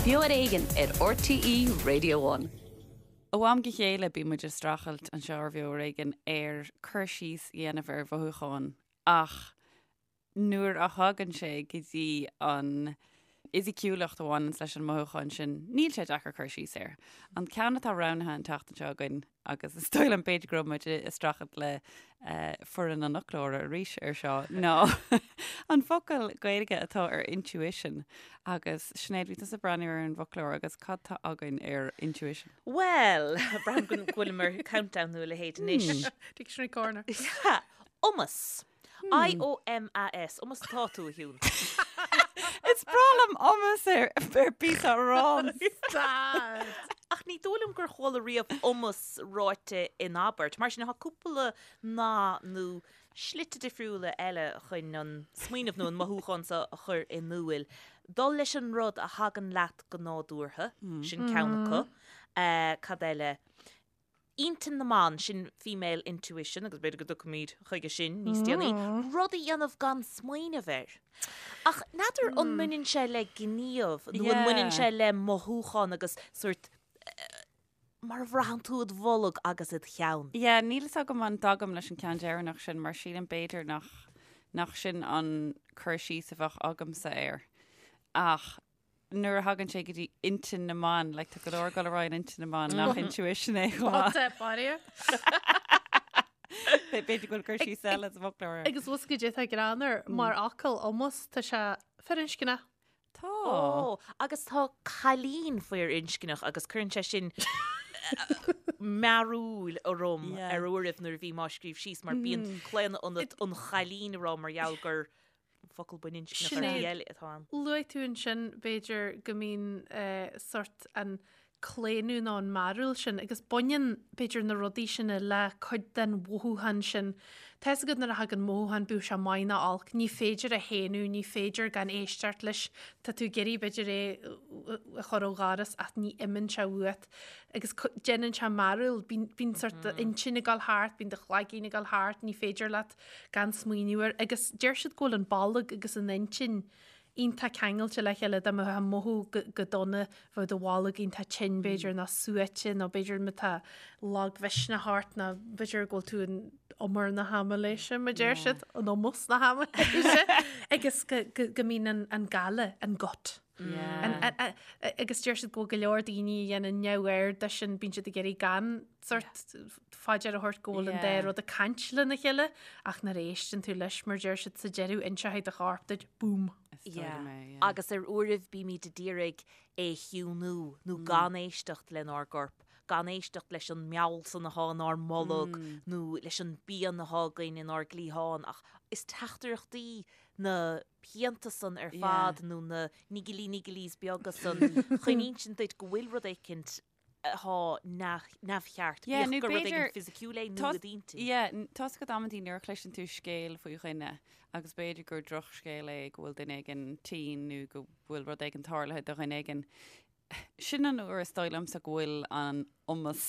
Beo ar Éigean ar RTÉ Radio One. Ó am go chéile bíonn muid ag streachailt anseo ar Bheo ar Éigean ar cur síos a dhéanamh ar mhothúcháin ach nuair a thagann sé go dtí an fhisiciúlacht a bhaineanns leis an mothúchán sin, níl sé deacair cur síos air. An ceann atá roghnaithe an tseachtain seo againn, agus is dóigh liom b'fhéidir go raibh muid ag streachailt le foireann an fhoclóra arís ar seo, ná an focal Gaeilge atá ar intuition. Agus Sinéad, bhí tusa ag breathnú ar an bhfoclóir agus cad tá againn ar intuition? Bhuel, braithim go bhfuilim ar countdown nó a leithéid anois. Dictionary Corner. Iomas. I-O-M-A-S. Iomas atá tú, a Shiún? Is breá liom iomas ar ar píosa aráin. Stad! Ach ní dóigh liom gur chuala riamh iomas ráite in abairt. Mar sin, tá cúpla nath nó slite difriúla eile chun an smaoineamh nó an mothúchán seo a chur in iúil. Dul leis an rud a thagann leat go nádúrtha, sin ceann acu. Cad eile? Intinn na mban, sin female intuition, agus b'fhéidir go dtiocfaimid chuige sin níos déanaí, rud a dhéanamh gan smaoineamh air. Ach n'fheadar an mbaineann sé le gníomh nó an mbaineann sé le mothúchán agus sórt mar a bhraitheann tú id bholg agus id cheann. Yeah, níl fhios agam an dtagaim leis an ceann deireanach sin mar sílim b'fhéidir nach nach sin an cur síos a bheadh agamsa air. Ach nuair a thagann sé go dtí intinn na mban, like, tá go leor ag dul ar aghaidh in intinn na mban nach intuition é chomh maith. Tá baria. B'fhéidir go bhfuil cur síos eile sa bhfoclóir air. Agus bhfuil goidé atá greannmhar mar fhocal iomas tá sé firinscneach. Tá. Ó, agus tá cailín firinscneach agus cuireann sé sin mearúil orm ar uairibh nuair a bhím á scríobh síos mar bíonn claonadh ionat an chailín a rá mar gheall gur focal baininscneach ar shlí eile atá ann. Luaigh tú ansin, b'fhéidir, go mbíonn sort an claonadh nó an mearúil sin agus baineann, b'fhéidir, na rudaí sin le cuid den mhothúchán sin. Tá fhios agat nuair a thagann mothúchán, bíodh sé maith nó olc, ní féidir a shéanadh, ní féidir gan éisteacht leis. Tá tú ag iarraidh, b'fhéidir, é a chur ó dhoras ach ní imíonn sé uait. Agus déanann sé mearúil, bíonn sort d'intinn ag dul thart, bíonn do chloigeann ag dul thart, ní féidir leat gan smaoineamh air agus deir siad go bhfuil an bolg agus an intinn iontach ceangailte le chéile dá mbeifeá ag mothú go dona bheadh do bholg iontach tinn b'fhéidir nó suaite nó b'fhéidir má tá lagmhisneach ort nó b'fhéidir go bhfuil tú in umar na haimiléise mar deir siad in iomas na haimiléise agus go mbíonn an gile an gut. Agus deir siad go bhfuil go leor daoine a dhéanann neamhaird de sin, bíonn siad ag iarraidh gan sort faoi deara a thabhairt go bhfuil an dá rud ag caint lena chéile ach nuair a éisteann tú leis mar deir siad sa deireadh inseoidh do chorp duit, boom. Agus ar uairibh bímid ag iarraidh é a chiúnú nó gan éisteacht lenár gcorp, gan éisteacht leis an meall san atá inár mbolg nó leis an bpian atá againn inár gcliathán ach is teachtaireachtaí na pianta san ar fad nó na niggly nigglies beaga san chun insint duit go bhfuil rud éicint atá neamhcheart, bíodh gur rud éigin fisiciúil é nó i d'intinn. Yeah, tá 's agat amantaí nuair a chloiseann tú scéal faoi dhuine agus b'fhéidir gur drochscéal é go bhfuil duine éigin tinn nó go bhfuil rud éigin tarlaithe do dhuine éigin, Sin an uair is dóigh liomsa go bhfuil an iomas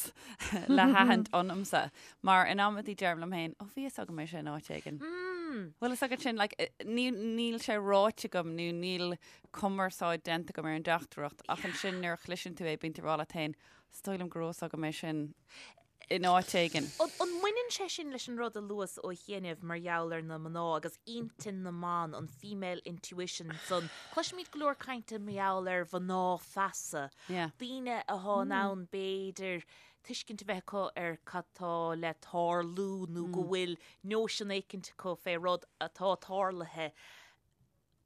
le haithint ionamsa, mar in amantaí deirim liom féin, ó bhí fhios agam é sin áit éigin. Bhfuil fhios agat sin, like, níl sé ráite agam nó níl cumarsáid déanta agam ar an dteachtaireacht ach ansin nuair a chloiseann tú é bíonn tú ag rá leat féin, is dóigh liom go raibh fhios agam é sin. in áit éigin. An mbaineann sé sin leis an rud a luas ó chianaibh mar gheall ar na mná agus intinn na mban, an female intuition san? Cloisimid go leor cainte mar gheall ar mhná feasa, daoine athá in ann b'fhéidir tuiscint a bheith acu ar cad tá le tarlú nó go bhfuil nóisean éicint acu fé rud atá tarlaithe.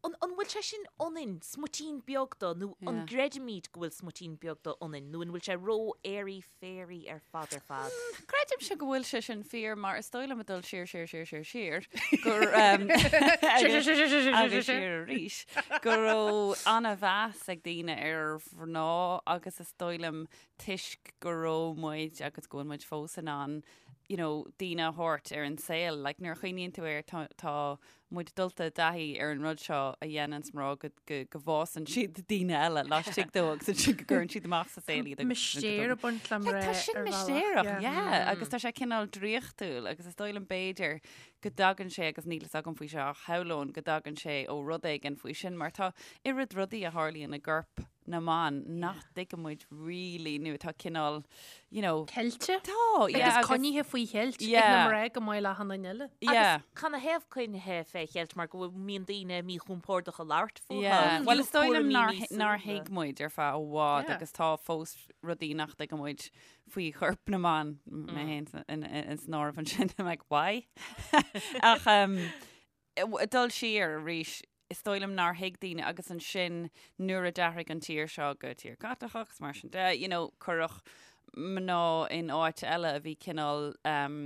An bhfuil sé sin ionainn, smuitín beag de, nó an gcreidimid go bhfuil smuitín beag de ionainn, nó an bhfuil sé ró-airy fairy ar fad ar fad? Creidimse go bhfuil sé sin fíor mar is dóigh liom ag dul siar siar siar siar siar gur agus siar arís go raibh an-mheas ag daoine ar mhná agus is dóigh liom toisc go raibh muid agus go bhfuil muid fós in ann you know, daoine a thabhairt ar an saol. Like, nuair a chuimhníonn tú air tá, tá muid dulta i dtaithí ar an rud seo a dhéananns mná go, go, go bhfásann siad daoine eile laistigh dóibh agus ansin go gcuireann siad amach sa saol iad. Mistéir ag baint le mná Like, tá sin mistéireach, yeah. Agus tá sé cineál draíochtúil agus is dóigh liom b'fhéidir go dtagann sé agus níl fhios agam faoi seo ach shamhlóinn go dtagann sé ó rud éigin faoi sin mar tá oiread rudaí a tharlaíonn i gcorp. na mban nach dtuigeann muid really nó atá cineál, you know. Ceilte? Tá, yeah. Agus coinnithe faoi cheilt ag na mná go maith le achan duine eile. Yeah. Agus canathaobh coinnithe fé cheilt mar go mbíonn daoine míchompordach a labhairt fúthu. Yeah. Bhuel is dóigh liom nár thuig muid ar feadh i bhfad agus tá fós rudaí nach dtuigeann muid faoi chorp na mban, mé féin san áireamh ansin, I'm like, why? Ach um, dul siar arís, is dóigh liom nár thuig daoine agus ansin nuair a d'athraigh an tír seo go tír Caitliceach agus mar sin de, you know, cuireadh mná in áit eile a bhí cineál um,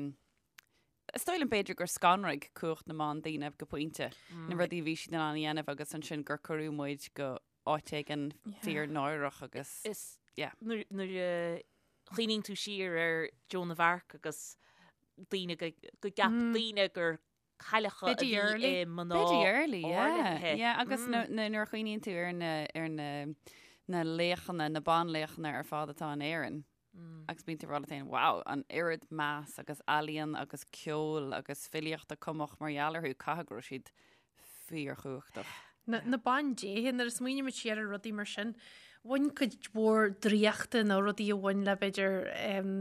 is dóigh liom b'fhéidir gur scanraigh cumhacht na mban daoine go pointe, na rudaí a bhí siad in ann a dhéanamh agus ansin gur cuireadh muid go áit éigin fíor náireach agus Is yeah. nuair nuair a chuimhníonn tú siar ar Joan of Arc agus daoine go go gceap daoine gur cailleacha a Biddy bhí Early. i mná Biddy Early, yeah. áirithe. Yeah, agus mm. nuair a chuimhníonn tú ar na, ar na, na laochanna, na banlaochanna ar fad atá in Éirinn. Mm. Agus bíonn tú ag rá leat féin, wow, an oiread meas agus ealaíon agus ceol agus filíocht a cumadh mar gheall orthu, caithfidh go raibh siad fíorchumhachtach. Na, na bandéithe, nuair a smaoinímid siar ar rudaí mar sin, bhain cuid mhór draíochta nó rudaí a bhain le b'fhéidir um,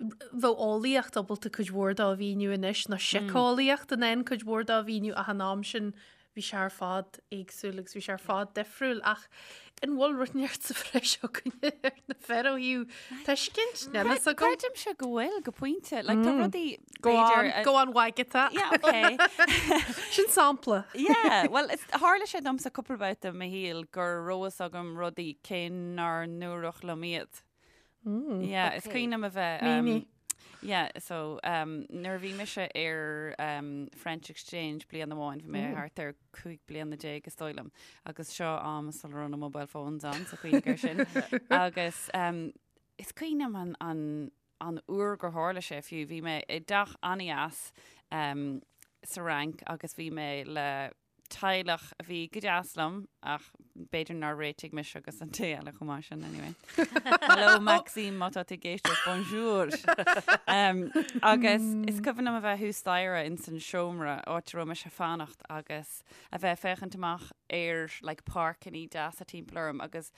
bheadh eolaíocht ábalta cuid mhór dó a mhíniú anois, nó síceolaíocht in ann cuid mhór dó a mhíniú ach an am sin bhí sé ar fad éagsúil agus bhí sé ar fad difriúil ach an bhfuil rud inteacht sa bhreis againne ar na fir ó thaobh tuiscint? Níl fhios agam. Creidimse go bhfuil go pointe. Like, tá rudaí Go b'fhéidir on, go on Wagatha. Yeah, okay. Sin sampla. Yeah, well, is, tharla sé domsa cúpla babhta i mo shaol go raibh fhios agam rudaí cé nár ndúradh liom iad. Yeah, is cuimhin liom a bheith. Mínigh. Yeah, so um, nuair a bhí mise ar um, French Exchange bliain amháin, bhí mé thart ar 15 bliana is dóigh liom, agus seo am sula raibh na mobile phones ann, so cuimhnigh air sin. Agus um, is cuimhin liom an, an, an uair gur tharla sé fiú, bhí mé i dteach an-deas um, sa Fhrainc agus bhí mé le teaghlach a bhí go deas liom ach b'fhéidir nár réitigh mise agus an té eile chomh maith sin anyway. Hello Maxime má tá tú ag éisteacht, bonjour! Um, agus is cuimhin liom a bheith thuas staighre in san seomra áit a raibh mise ag fanacht agus a bheith ag féachaint amach ar like, páirceanna deasa timpeall orm agus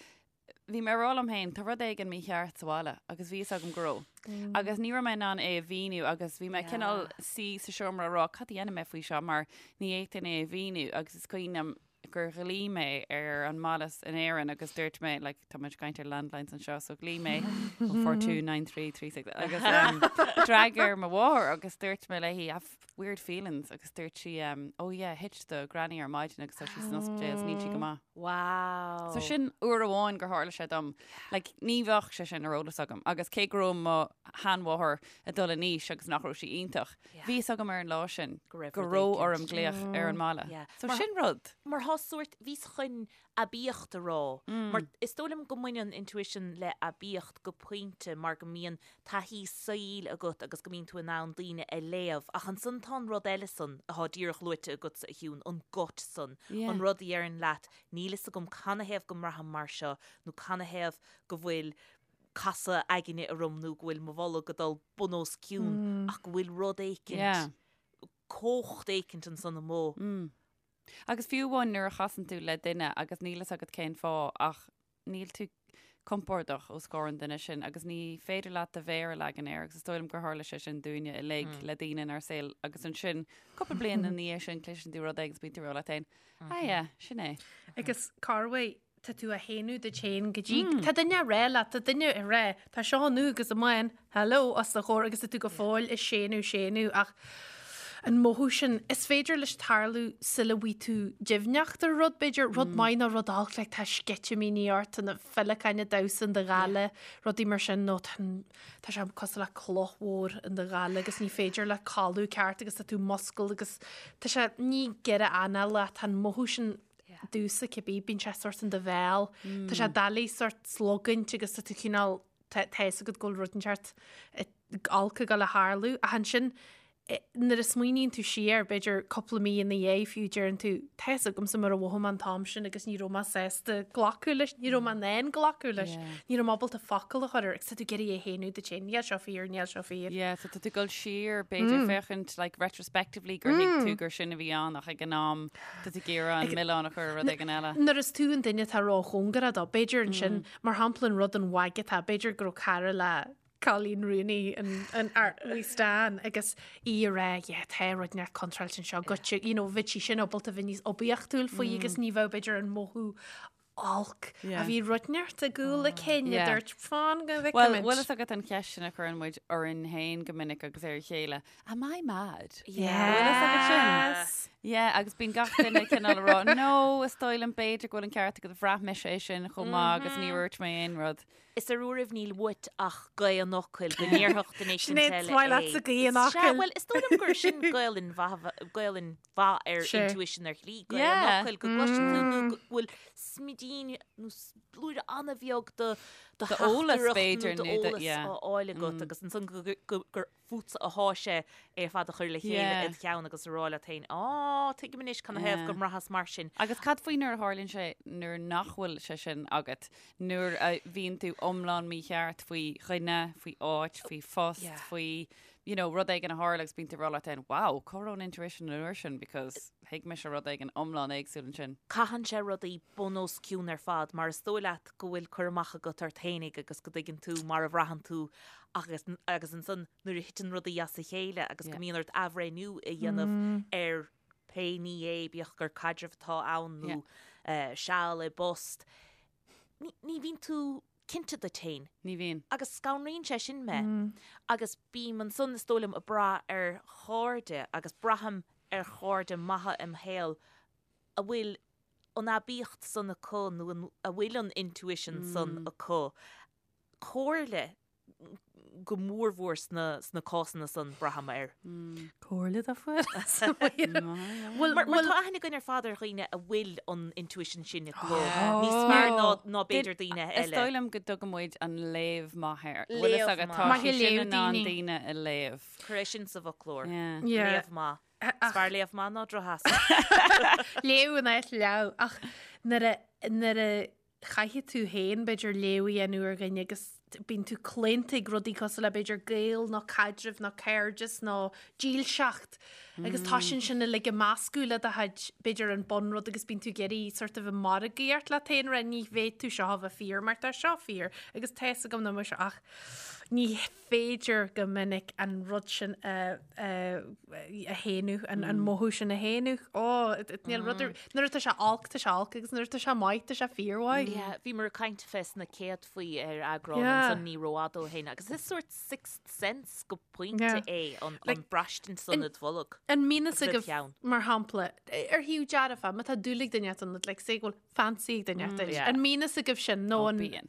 Bhí mé ag rá liom féin, tá rud éigin mícheart sa bhaile agus bhí fhios agam go raibh. Agus ní raibh mé in ann é a mhíniú agus bhí mé cineál suí sa seomra ag rá cad a dhéanfaidh mé faoi seo mar ní fhéadfainn é a mhíniú agus is cuimhin liom gur ghlaoigh mé ar an mbaile in Éirinn agus dúirt mé, like, tá muid ag caint ar landlines anseo, so ghlaoigh mé 429336 agus um, d'fhreagair mo mháthair agus dúirt mé léi, I've weird feelings agus dúirt sí um, oh yeah, thit do granny ar maidin agus tá sí san ospidéal is níl sí go maith. Wow. So sin uair amháin gur tharla sé dom. Like, ní bheadh sé sin ar eolas agam. Agus cé go raibh mo sheanmháthair ag dul in aois agus nach raibh sí iontach, bhí fhios agam ar an lá sin Go raibh go rud raibh éicint. orm glaoch ar an mbaile. Yeah. So Mar- sin rud. Mar thá sórt, bhíos chun aibíocht a rá. Mar is dóigh liom go mbaineann intuition le aibíocht go pointe mar go mbíonn taithí saoil agat agus go mbíonn tú in ann daoine a léamh. Ach ansan tá an rud eile san atá díreach luaite agatsa, a Shiún, an gut san, an rud a dheireann leat níl fhios agam canathaobh go mbraithim mar seo nó canathaobh go bhfuil casadh aigne orm nó go bhfuil mo bholg ag dul bun os cionn ach go bhfuil rud éicint, cumhacht éicint ansan amuigh. Agus fiú amháin nuair a chasann tú le duine agus níl fhios agat cén fáth ach níl tú compordach os comhair an duine sin agus ní féidir leat do mhéar a leagan air agus is dóigh liom gur tharla sé sin dúinne uilig le daoine inár saol agus ansin cúpla bliain ina dhiaidh sin cloiseann tú rud éigin agus bíonn tú ag rá leat féin ah yeah, sin é. Agus corruair tá tú á shéanadh duit féin go dtí tá duine ag rá leat, tá duine ag rá, tá seo nua agus amháin, hello, os do chomhair agus tá tú go fóill ag séanadh, séanadh ach an mothú sin, is féidir leis tarlú sula bhfaighidh tú deimhneacht ar rud, b'fhéidir, rud maith nó rud olc, like tá sceitimíní ort, tá na féileacáin ag damhsa in do ghoile, rudaí mar sin, nó tá tá sé cosúil le cloch mhór in do ghoile agus ní féidir leat codladh ceart agus tá tú múscailte agus tá sé, ní giorra anála, tá an mothú sin domhsa cibé, bíonn sé sórt in do bhéal, tá sé doiligh sórt slogaint agus tá tú cineál, tá a fhios agat go bhfuil rud inteacht olc ag dul a tharlú ach ansin. Nuair a smaoiníonn tú siar, b'fhéidir cúpla mí ina dhiaidh fiú, deireann tú, tá fhios agamsa mar a mhothaigh mé an t-am sin agus ní raibh mé sásta glacadh leis, ní raibh mé in ann glacadh leis, ní raibh mé ábalta focal a chur air agus tá tú ag iarraidh é a shéanadh duit féin, níl seo fíor, níl seo fíor. Yeah, so tá tú ag dul siar, b'fhéidir, féachaint, like, retrospectively gur thuig tú gur sin a bhí ann ach ag an am tá tú ag iarraidh an milleán a chur ar rud éigin eile. Nuair is tú an duine atá róchóngarach dó, b'fhéidir ansin, mar shampla an rud an mhaidhc atá, b'fhéidir go raibh cara le Colleen Rooney an wee Stan agus í ag rá yeah tá rud inteacht contráilte anseo goitse you know bheadh sí sin ábalta bheith níos oibiachtúil faoi agus ní bheadh b'fhéidir an mothú olc a bhí rud inteacht i gcúl a cinn a dúirt fan go bhfeicfimid. Bhuel, bhfuil fhios agat an cheist sin a chuireann muid orainn féin go minic agus ar a chéile, Am I mad? Yeah. Bhfuil fhios agat sin? Yeah, agus bíonn gach duine cineál ag rá, no, is dóigh liom b'fhéidir go bhfuil an ceart agat, bhraith mise é sin chomh maith agus ní dúirt mé aon rud. Is ar uairibh níl uait ach gaoth an fhocail go ndéarfadh duine éicint Sinéad, eile is maith leatsa é. gaoth an Sea, fhocail. bhuel, is dóigh liom gur sin Gaelainn mhaith, Gaelainn mhaith ar Sea. intuition ar shlí, gaoth an Yeah. fhocail, go gcloiseann tú nó go bhfuil smidín nó blúire an-bheag de do D'eolas, theachtaireacht b'fhéidir, nó nó de, d'eolas yeah. á fháil agat agus ansan go, go, gur fútsa athá sé é ar fad a chur le chéile Yeah. id cheann agus a rá leat féin, Á, tuigim anois canathaobh Yeah. go mbraitheas mar sin. Agus cad faoi nuair a tharlaíonn sé nuair nach bhfuil sé sin agat, nuair a bhíonn tú iomlán mícheart faoi dhuine, faoi áit, faoi phost, Yeah. faoi, you know, rud éigin a tharla agus bíonn tú ag rá leat féin, wow, cá raibh an intuition an uair sin because thuig mise rud éigin iomlán éagsúil ansin. Caitheann sé rudaí bun os cionn ar fad mar is dóigh leat go bhfuil cur amach agat ort fhéinig agus go dtuigeann tú mar a bhraitheann tú Agus, agus ansan nuair a thiteann rudaí as a chéile agus go mbíonn ort athbhreithniú a dhéanamh ar pé ní é, bíodh gur caidreamh atá ann nó seal i bpost, ní, ní bhíonn tú cinnte duit féin. Ní bhíonn. Agus scanraíonn sé sin mé. Agus bím ansan, is dóigh liom, ag brath ar chairde agus braithim ar chairde maithe im shaol a bhfuil an aibíocht san acu nó a bhfuil an intuition san acu comhairle go mórmhór sna sna cásanna san, braithim air. Comhairle dá fuil. Bhuel, mar tá aithne againn ar fad ar dhaoine a bhfuil an intuition sin acu níos fearr ná ná b'fhéidir daoine Is eile. dóigh liom go dtugann muid an léamh maith air. Bhfuil fhios Léamh agat, maith. tá Maith sí ag sin léamh in ann daoine. daoine a léamh. Cuir é sin sa bhfoclóir. Yeah. Yeah. Léamh maith. Is fearr léamh maith ná drochfheasa. Léamh in áit leamh ach nuair a nuair a chaithfidh tú féin, b'fhéidir, léamh a dhéanamh ar dhuine agus bíonn tú claonta ag rudaí cosúil le, b'fhéidir, gaol nó caidreamh nó cairdeas nó dílseacht agus tá sin sin uilig ag meascadh le do chuid, b'fhéidir, an bunrud agus bíonn tú ag iarraidh sort of ag margaíocht leat féin, rá ní bhféadfadh tú seo a bheith fíor mar tá seo fíor agus tá fhios agam nach mbeadh seo ach ní féidir go minic an rud sin a a shéanadh, an mothú sin a shéanadh. Ó, níl rud ar, nuair atá sé olc, tá sé olc, agus nuair atá sé maith, tá sé fíormhaith. Yeah, bhíomar ag caint fés na céadfaí ar eagrán Yeah. ansan ní rófhada ó shin, agus is sórt sixth sense go pointe Yeah. é an, Like, an braistint san id bholg. An mbíonn fhios Agus id agaibh, cheann. mar shampla, ar thaobh dearfa, má tá dúil ag duine ort, like, say go bhfuil fancy ag duine ort, yeah. an mbíonn fhios agaibh sin, nó Ó, an... bíonn.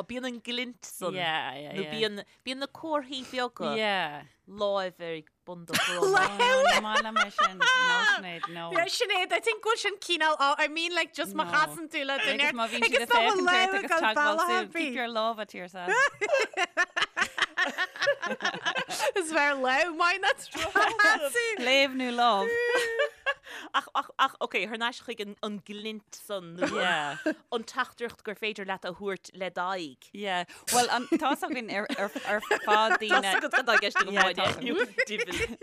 Bíonn an glint san. Yeah, yeah, Nó yeah. bíonn, bíonn na comharthaí beaga Yeah. láimh ar bun do dhroma. Ní maith liom é sin. No, Sinéad, no. Yeah, Sinéad, I think go bhfuil sin cineál, oh, I mean like just má No. chasann tú le duine Agus má bhíonn siad agus ag tá mo féachaint ort lámh agus ag dul teagmháil bealach súl, ar keep bith. your lámha to yourself. Is fearr lámh maith ná drochchasadh. Léamh nó lámh. Ach, ach, ach, ok, thar n-ais chuig an, an glint san nó Yeah. an teachtaireacht gur féidir leat a thabhairt le d'aghaidh. Yeah. Well, an, tá's againn ar, ar, ar fad daoine... Tá's agat cad tá i gceist agam, Yeah, Áine. tá's agam. Diabhal.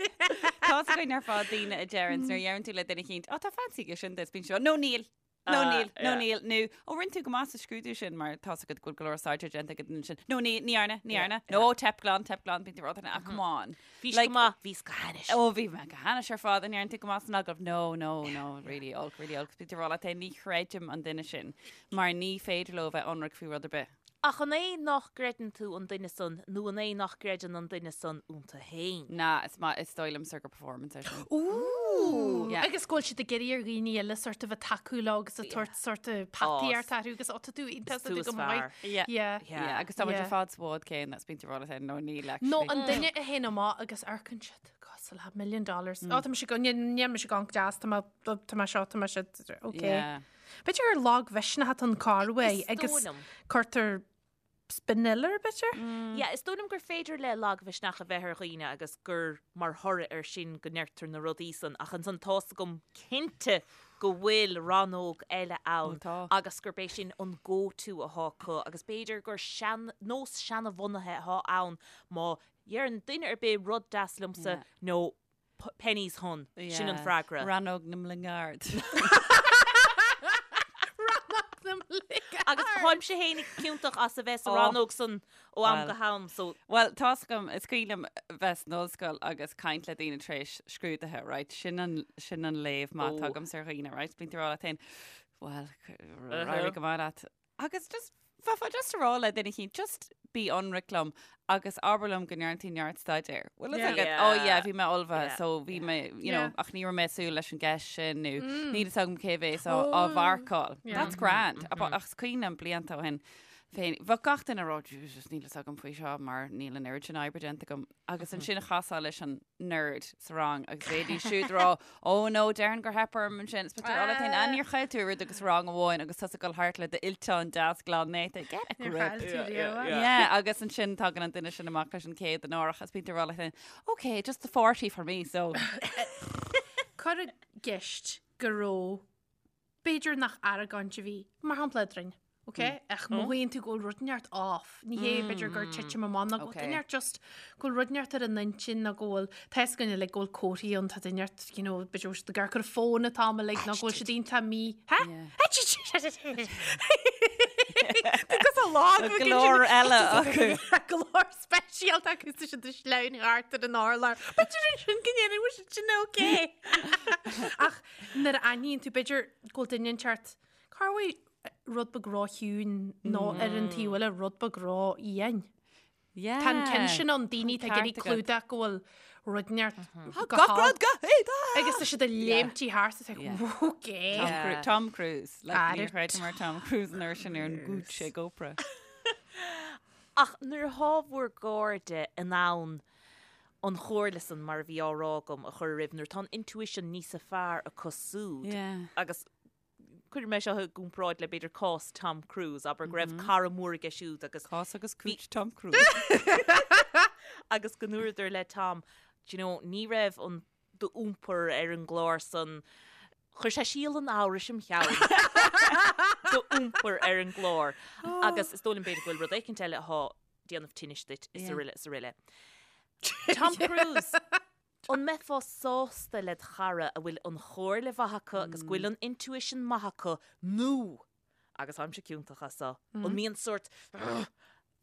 Tá's againn ar fad daoine a deireann, nuair a dheireann tú le duine eicínt, oh, tá fancy aige sin duit, bíonn siad, no níl, No Ah, níl, no yeah. níl, nó ó rinne tú go maith sa scrúdú sin mar tá's agat go bhfuil go leor staidéir déanta ag an duine sin. No ní, ní dhearna, ní Yeah, dhearna. No teip glan, teip glan, bíonn tú ag rá ah, come on. Bhís Like- go maith, bhís go hainnis. Ó bhí mé go hainnis ar fad an ndearna tú go maith san agallamh. No, no, no, really olc, really olc. Bíonn tú ag rá leat féin, ní chreidim an duine sin mar ní féidir leo bheith ionraic faoi rud ar bith. Ach an é nach gcreideann tú an duine san nó an é nach gcreideann an duine san iontu féin? Na, is maith, is dóigh liomsa gur performance é sin. Ooh! Yeah. Agus go bhfuil siad ag iarraidh ar dhaoine eile sort of a tacú leo agus ag tabhairt sort of pataíocht orthu agus ó tá tú iontach, Is tá tú tú is go maith. fearr. Yeah. Yeah. Yeah, agus tá muid Yeah. ar fad sa bhád céanna, is bíonn tú ag rá leat féin, no níl actually. Nó an duine a théann amach agus amharcann siad cosúil le million dollars. Ó tá mise go, níl mise go deas, tá mé, tá mé seo, tá mé seo, okay. Yeah. B'fhéidir gur lagmhisneach atá an corruair Is agus dóigh liom. cuirtear Spiniller, b'fhéidir? Yeah, is dóigh liom gur féidir le lagmhisneach a bheith ar dhaoine agus gur mar thoradh air sin go ndeirtear na rudaí san, ach ansan tá's agam cinnte go bhfuil rannóg eile ann agus gurb é sin an go-to athá acu agus b'fhéidir gur sean, nós seanabhunaithe athá ann má dheireann duine ar bith rud deas liomsa nó pennies hun, sin an freagra. Rannóg na mbligeard. Rannóg na mbligeard. Agus táimse fhéinig ciontach as a bheith sa rannóg san ó am go ham, so. Bhuel, tá's agam, is cuimhin liom bheith san ollscoil agus caint le daoine tar éis scrúduithe, right? Sin an, sin an léamh maith atá agamsa ar dhaoine, right? Bíonn tú ag rá leat féin, bhuel, éirigh go maith leat. Agus just, bheifeá just a rá le duine eicínt, just bí ionraic liom agus abair liom go ndearna tú neart staidéir. Bhfuil fhios agat? Oh yeah, bhí mé ullmhaithe, so bhí mé, you know, ach ní raibh mé ag súil leis an gceist sin nó níl fhios agam cé bhéas á á mharcáil. That's grand. Ach is cuimhin liom blianta ó shin féin, bheadh gach duine ag rá, Jesus, níl fhios agam faoi seo mar níl an oiread sin oibre déanta agam. Agus ansin chasfá leis an nerd sa rang agus bheidís siúd ag rá, oh no, déarfainn gur theip orm ansin. Is b'fhéidir all thing, níor chaill tú oiread agus rang amháin agus tusa ag dul thart le d'fhillteán deas glan néata. Get a Níor grip. chaill tú riamh. Yeah, agus ansin tagann an duine sin amach leis an 100 an árach is bíonn tú ag rá leat féin, okay, just the 40 for me, so. Cuir i gceist go raibh B'fhéidir nach argóint a bhí, mar shampla, eadrainn, ok? Ach mothaíonn tú go bhfuil rud inteacht off. Ní hé b'fhéidir gur titim amach nó go bhfuil duine inteacht just go bhfuil rud inteacht ar a n-intinn nó go bhfuil tá fhios againn uilig go bhfuil comharthaí ann tá duine inteacht you know b'fhéidir go bhfuil siad ag amharc ar an fón an t-am uilig nó go bhfuil siad iontach mí Há? Agus a lá Go leor eile acu. Go leor speisialta acu tá siad ag sleamhnú thart ar an urlár. B'fhéidir ansin go ndéanfaidh muid sin ok. Ach Nuair a aithníonn tú, b'fhéidir go bhfuil duine inteacht, cá bhfuil rud beag ró-chiúin nó ar an taobh eile rud beag ró-fhiáin. Yeah. Tá an ceann sin ann, daoine atá ag iarraidh clúdach go bhfuil rud inteacht go Gach hard. rud go héadach! Agus tá siad ag léimtí thart is like, okay. Tom Cru- Tom Cruise. Like, Ar níor chreideamar Tom Cruise an uair sin ar an gcúits ag Oprah. Ach nuair atá bhur gcairde in ann an chomhairle san, mar a bhí á rá agam, a chur oraibh, nuair atá an intuition níosa fearr acu súd, agus cuirfidh mé seo i gcomparáid le b'fhéidir cás Tom Cruise, abair go raibh cara mór aige siúd agus Cás agus cúits Tom Cruise. agus go ndúradar le Tom, do you know, ní raibh an d'iompar ar an gclár san, chuir sé síol an amhrais im cheann d'iompar ar an gclár. Agus is dóigh liom b'fhéidir go bhfuil rud éicint eile athá déanamh tinnis duit is araile is araile. Tom Cruise, an mbeifeá sásta led chara a bhfuil an chomhairle mhaith acu agus go bhfuil an intuition maith acu nó, agus táimse ciontach as seo, an mbíonn sórt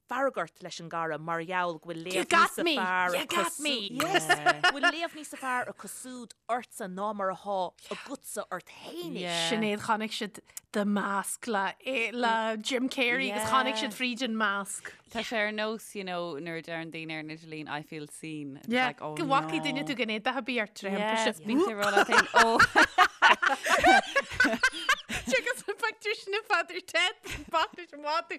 fearg ort leis an gcara mar gheall go bhfuil léamh níosa fearr acu go bhfuil léamh níosa fearr acu súd ortsa ná mar athá agatsa ort fhéinig. Sinéad, chonaic siad The Mask le le Jim Carrey agus chonaic siad fríd an mask. Tá sé ar nós, you know, nuair a deireann daoine ar an idirlíon, I feel seen. It's Yeah, like, oh go bhfacaidh no. duine tú gan éadach a bhí ort tar Yes, thimpiste. bíonn tú ag rá leat féin, oh. Agus an pictiúr sin i Father Ted, bac leis an mhada.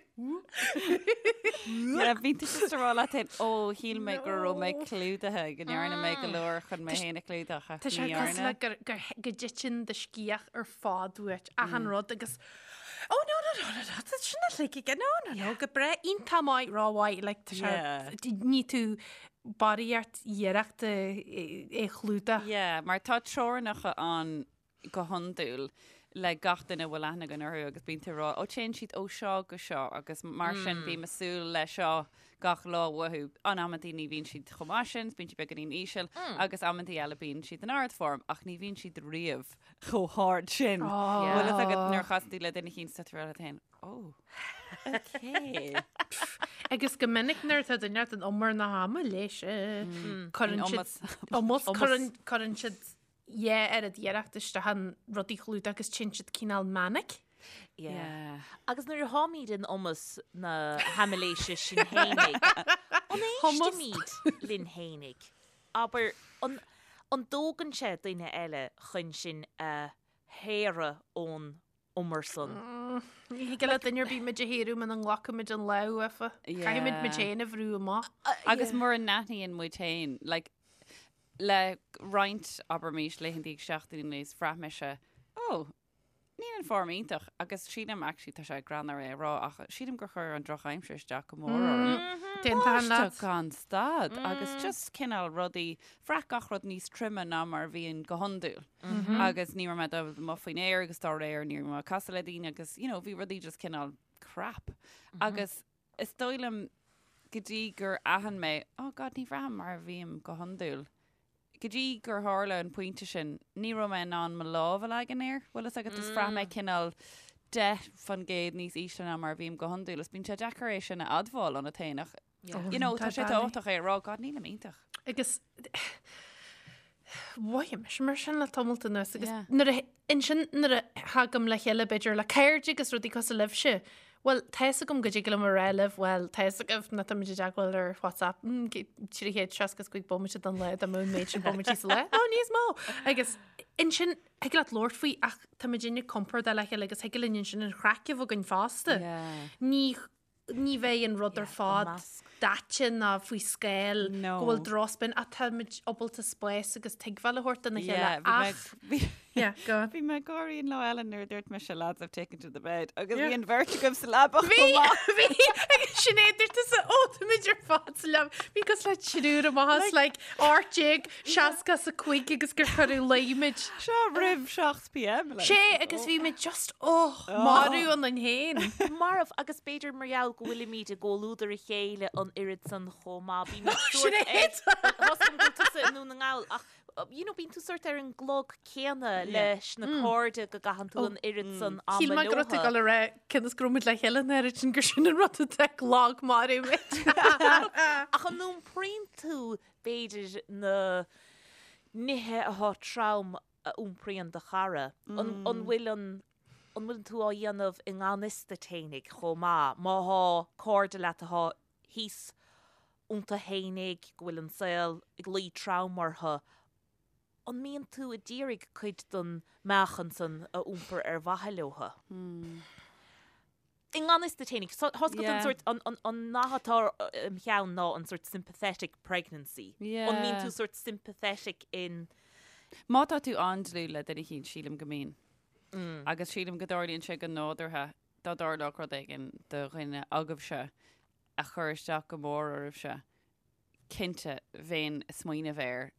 Yeah, bíonn tú just ag rá leat féin, oh, shíl mé go raibh mé clúdaithe, go ndearna mé go leor chun mé féin a chlúdach, ach Tá sé ní cosúil dhearna. le gur, gur, go dtiteann do sciath ar fad uait, achan rud agus Oh no no no no no, tá sin uilig aige, no no no, go breá, iontach maith, rómhaith, like tá sé, Yeah. ní tú barraíocht iarrachta é a chlúdach. Yeah, mar tá teorainneacha ann go hiondúil le gach duine a bhfuil aithne againn orthu agus bíonn tú ag rá, ó téann siad ó seo go seo agus mar sin bím ag súil le seo gach lá uathu. In amantaí ní bhíonn siad chomh maith sin, bíonn siad beagáinín íseal agus amantaí eile bíonn siad in ardform ach ní bhíonn siad riamh chomh hard sin. Bhfuil fhios agat nuair a chasann tú le duine eicínt tá tú ag rá leat féin, oh, okay. Agus go minic nuair atá duine in umar na hama leis, cuireann In siad iomas. iomas, cuireann cuireann siad dhá oiread iarracht isteach an rud a chlúdach agus téann siad cineál manic. Yeah. Agus nuair a tháimid in iomas na haimiléise sinn fhéinig, an éistimid linn fhéinig? Abair, an an dtógann sé duine eile chun sinn a shaoradh ón umar san? Ní thig le duine ar bith muid a shaoradh muna nglacaimid an lámh uafa. Caithfimid muid féin a bhrú amach. Agus mura n-aithníonn muid féin, like, le roinnt, abraimis, laethanta agus seachtainí anuas, bhraith mise, oh, Níl an form iontach agus sílim actually tá sé greannmhar é a rá ach sílim gur chuir an drochaimsir isteach go mór orm. D'aontóinn leat. Báisteach gan stad agus just cineál rudaí, bhraith gach rud níos troime ná mar a bhíonn go hiondúil. Agus ní raibh mé dul amuigh faoin aer agus dá réir ní raibh mé ag casadh le daoine agus you know bhí rudaí just cineál crap. Agus is dóigh liom go dtí gur aithin mé, oh God ní bhraithim mar a bhím go hiondúil. Go dtí gur tharla an pointe sin, ní raibh mé in ann mo lámh a leagan air, bhfuil fhios agat, just bhraith mé cineál 10% níos ísle ná mar a bhím go hiondúil. Is bíonn sé deacair é sin a admháil ionat féin ach, you know, tá sé tábhachtach é a rá, God, nílim iontach. Agus mhothaigh mise mar sin le tamalt anuas agus nuair a Ansin nuair a thagaim le chéile b'fhéidir le cairde agus rudaí cosúil libhse, bhuel, tá fhios agam go dtig liom a rá libh, bhuel, tá fhios agaibh ná táimid i dteagmháil ar WhatsApp, 365 bomaite den lá, dá mbeadh an méid sin bomaití sa lá, nó níos mó! Agus ansin thig leat labhairt faoi ach táimid inne compordach le chéile agus thig linn ansin an chraic a bheith againn fosta. Ní ní bheidh an rud ar fad daite ná faoi scáil go bhfuil drochspin ach táimid ábalta spás agus tuigbheáil a thabhairt dona chéile ach Yeah, go on. Bhí mé ag gáirí an lá eile nuair a dúirt mise lads I've taken to the bed agus bhí an bheirt agaibh sa leaba Bhí bhí agus Sinéad dúirt tusa ó táimid ar fad sa leaba bhí cosúil le triúr amach as like 1865 agus gur cuireadh luí muid. Seo roimh 7 pm like. Sé agus bhí muid just oh marbh ionainn féin. Marbh agus b'fhéidir mar gheall go bhfuilimid i gcomhluadar a chéile an oiread san chomh maith. Bímid sórt ar Tá 's agam go bhfuil tusa i nDún na nGall ach you know bíonn tú sórt ar an gclog céanna leis na cairde go gcaitheann tú an oiread san ama Shíl mé go raibh tú ag dul a rá cionn is go raibh muid le chéile an oiread sin gur sin an rud atá ag lagmharú muid. Ach an iompraíonn tú b'fhéidir na nithe atá trom a iompraíonn do chara? An bhfuil an an bhfuil tú á dhéanamh i ngan fhios duit fhéinig chomh maith? Má thá cairde leat atá thíos iontu fhéinig, go bhfuil an saol ag luí trom orthu, an mbíonn tú a d'iarraidh cuid den meáchan san a iompar ar mhaithe leothu? I ngan fhios duit fhéinig. Tá 's agat an sórt, an nath atá im cheann ná an sórt sympathetic pregnancy. An mbíonn tú sórt sympathetic in. Má tá tú an-dlúth le duine eicínt, sílim go mbíonn. Agus sílim go dtarlaíonn sé go nádúrtha dá dtarlódh rud éigin do dhuine agaibhse a chuir isteach go mór oraibhse. cinnte, bheinn ag smaoineamh air,